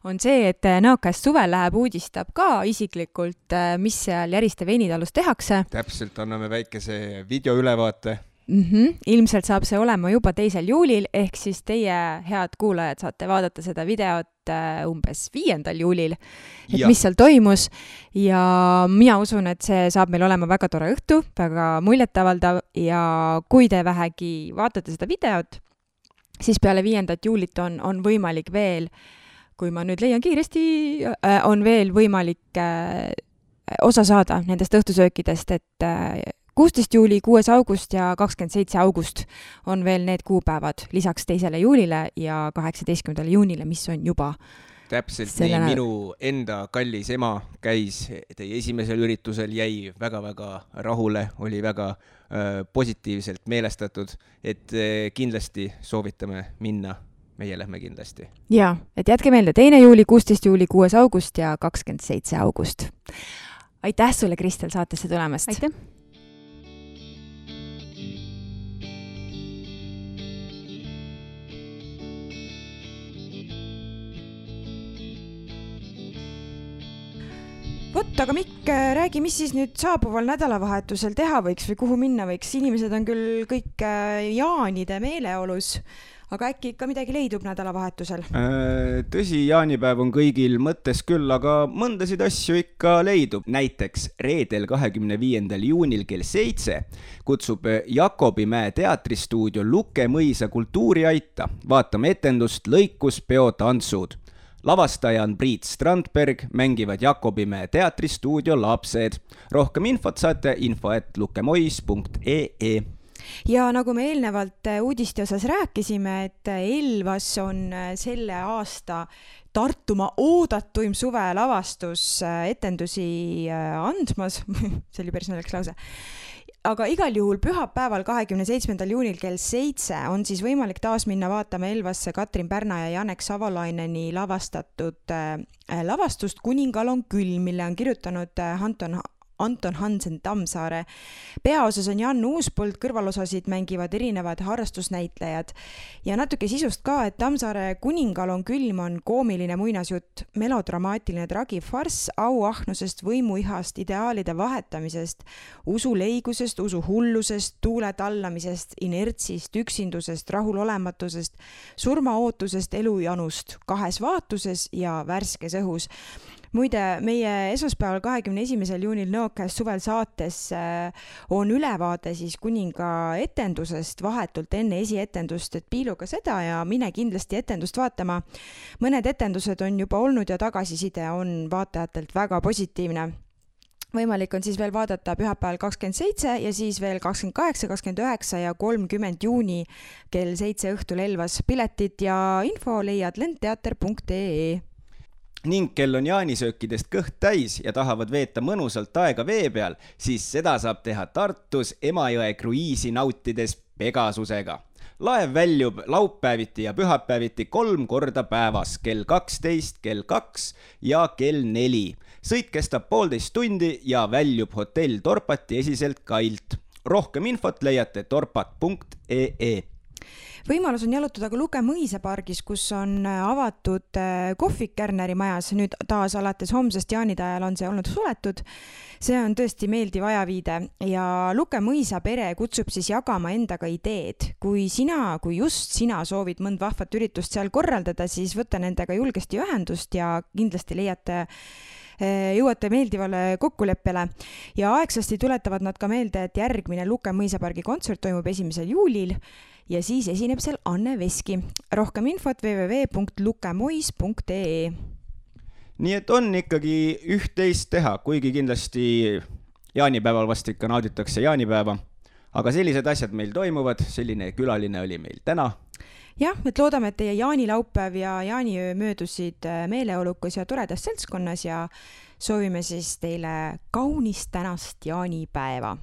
On see, et Nõokäest suvel läheb uudistab ka isiklikult, mis seal Järiste veinitalus tehakse. Täpselt, anname väikese videoülevaate. Ilmselt saab see olema juba 2. juulil, ehk siis teie head kuulajad saate vaadata seda videot umbes 5. juulil, et mis seal toimus ja mina usun, et see saab meil olema väga tore õhtu, väga muljetavaldav ja kui te vähegi vaatate seda videot, siis peale 5. juulit on võimalik veel, kui ma nüüd leian kiiresti, on veel võimalik osa saada nendest õhtusöökidest, et 16. juuli, 6. august ja 27. august on veel need kuupäevad lisaks 2. juulile ja 18. juunile, mis on juba täpselt nii, minu enda kallis ema käis teie esimesel üritusel, jäi väga-väga rahule, oli väga positiivselt meelestatud, et kindlasti soovitame minna, meie lähme kindlasti. Jaa, et jätke meelde 2. juuli, 16. juuli, 6. august ja 27. august. Aitäh sulle, Kristel, saatesse tulemast! Aitäh! Vot, aga Mikk, räägi, mis siis nüüd saabuval nädalavahetusel teha võiks või kuhu minna võiks? Inimesed on küll kõik jaanide meeleolus, aga äkki ikka midagi leidub nädalavahetusel? Tõsi, jaanipäev on kõigil mõttes küll, aga mõndasid asju ikka leidub. Näiteks reedel 25. juunil kell 7 kutsub Jakobimäe teatristuudio Luke Mõisa kultuuriaita. Vaatame etendust Lõikuspeo tantsud. Lavastaja on Priit Strandberg, mängivad Jakobimäe teatristuudio lapsed. Rohkem infot saate info@lukemois.ee. Ja nagu me eelnevalt uudiste osas rääkisime, et Elvas on selle aasta Tartumaa oodatuim suvelavastus etendusi andmas. See oli päris naljakas lause. Aga igal juhul pühapäeval 27. juunil kell 7 on siis võimalik taas minna vaatama Elvasse Katrin Pärna ja Janek Savalaineni lavastatud lavastust Kuningal on külm, mille on kirjutanud Anton Hansen Tammsaare. Peaosas on Jan Uuspõld, kõrvalosasid mängivad erinevad harrastusnäitlejad. Ja natuke sisust ka, et Tammsaare Kuningal on külm on koomiline muinasjutt, melodramaatiline tragifarss, auahnusest, võimuihast, ideaalide vahetamisest, usuleigusest, usuhullusest, tuule tallamisest, inertsist, üksindusest, rahulolematusest, surmaootusest, elujanust, 2 vaatuses ja värskes õhus. Muide, meie esmaspäeval 21. juunil Nõokäest suvel saates on ülevaade siis kuninga etendusest vahetult enne esietendust, et piiluga seda ja mine kindlasti etendust vaatama. Mõned etendused on juba olnud ja tagasiside on vaatajatelt väga positiivne. Võimalik on siis veel vaadata pühapäeval 27 ja siis veel 28, 29 ja 30 juuni kell 7 õhtul Elvas. Piletid ja info leiad lendteater.ee. Ning kel on jaanisöökidest kõht täis ja tahavad veeta mõnusalt aega vee peal, siis seda saab teha Tartus Emajõe kruiisi nautides Pegasusega. Laev väljub laupäeviti ja pühapäeviti 3 korda päevas, kell 12, kell 2 ja kell 4. Sõit kestab 1,5 tundi ja väljub hotell Torpati esiselt kailt. Rohkem infot leiate torpat.ee. Võimalus on jalutada ka Luke Mõisa pargis, kus on avatud kohvik Kärneri majas. Nüüd taas alates homsest jaanide ajal on see olnud suletud. See on tõesti meeldiv ajaviide ja Luke Mõisa pere kutsub siis jagama endaga ideed. Kui just sina soovid mõnd vahvat üritust seal korraldada, siis võta nendega julgesti ühendust ja kindlasti jõuate meeldivale kokkuleppele. Ja aegsasti tuletavad nad ka meelde, et järgmine Luke Mõisa pargi kontsert toimub 1. juulil ja siis esineb seal Anne Veski. Rohkem infot www.lukemois.ee. Nii et on ikkagi üht-teist teha, kuigi kindlasti jaanipäeval vast ikka nauditakse jaanipäeva. Aga sellised asjad meil toimuvad, selline külaline oli meil täna. Jah, et loodame, et teie jaanilaupäev ja jaaniöö möödusid meeleolukas ja toredas seltskonnas ja soovime siis teile kaunist tänast jaanipäeva.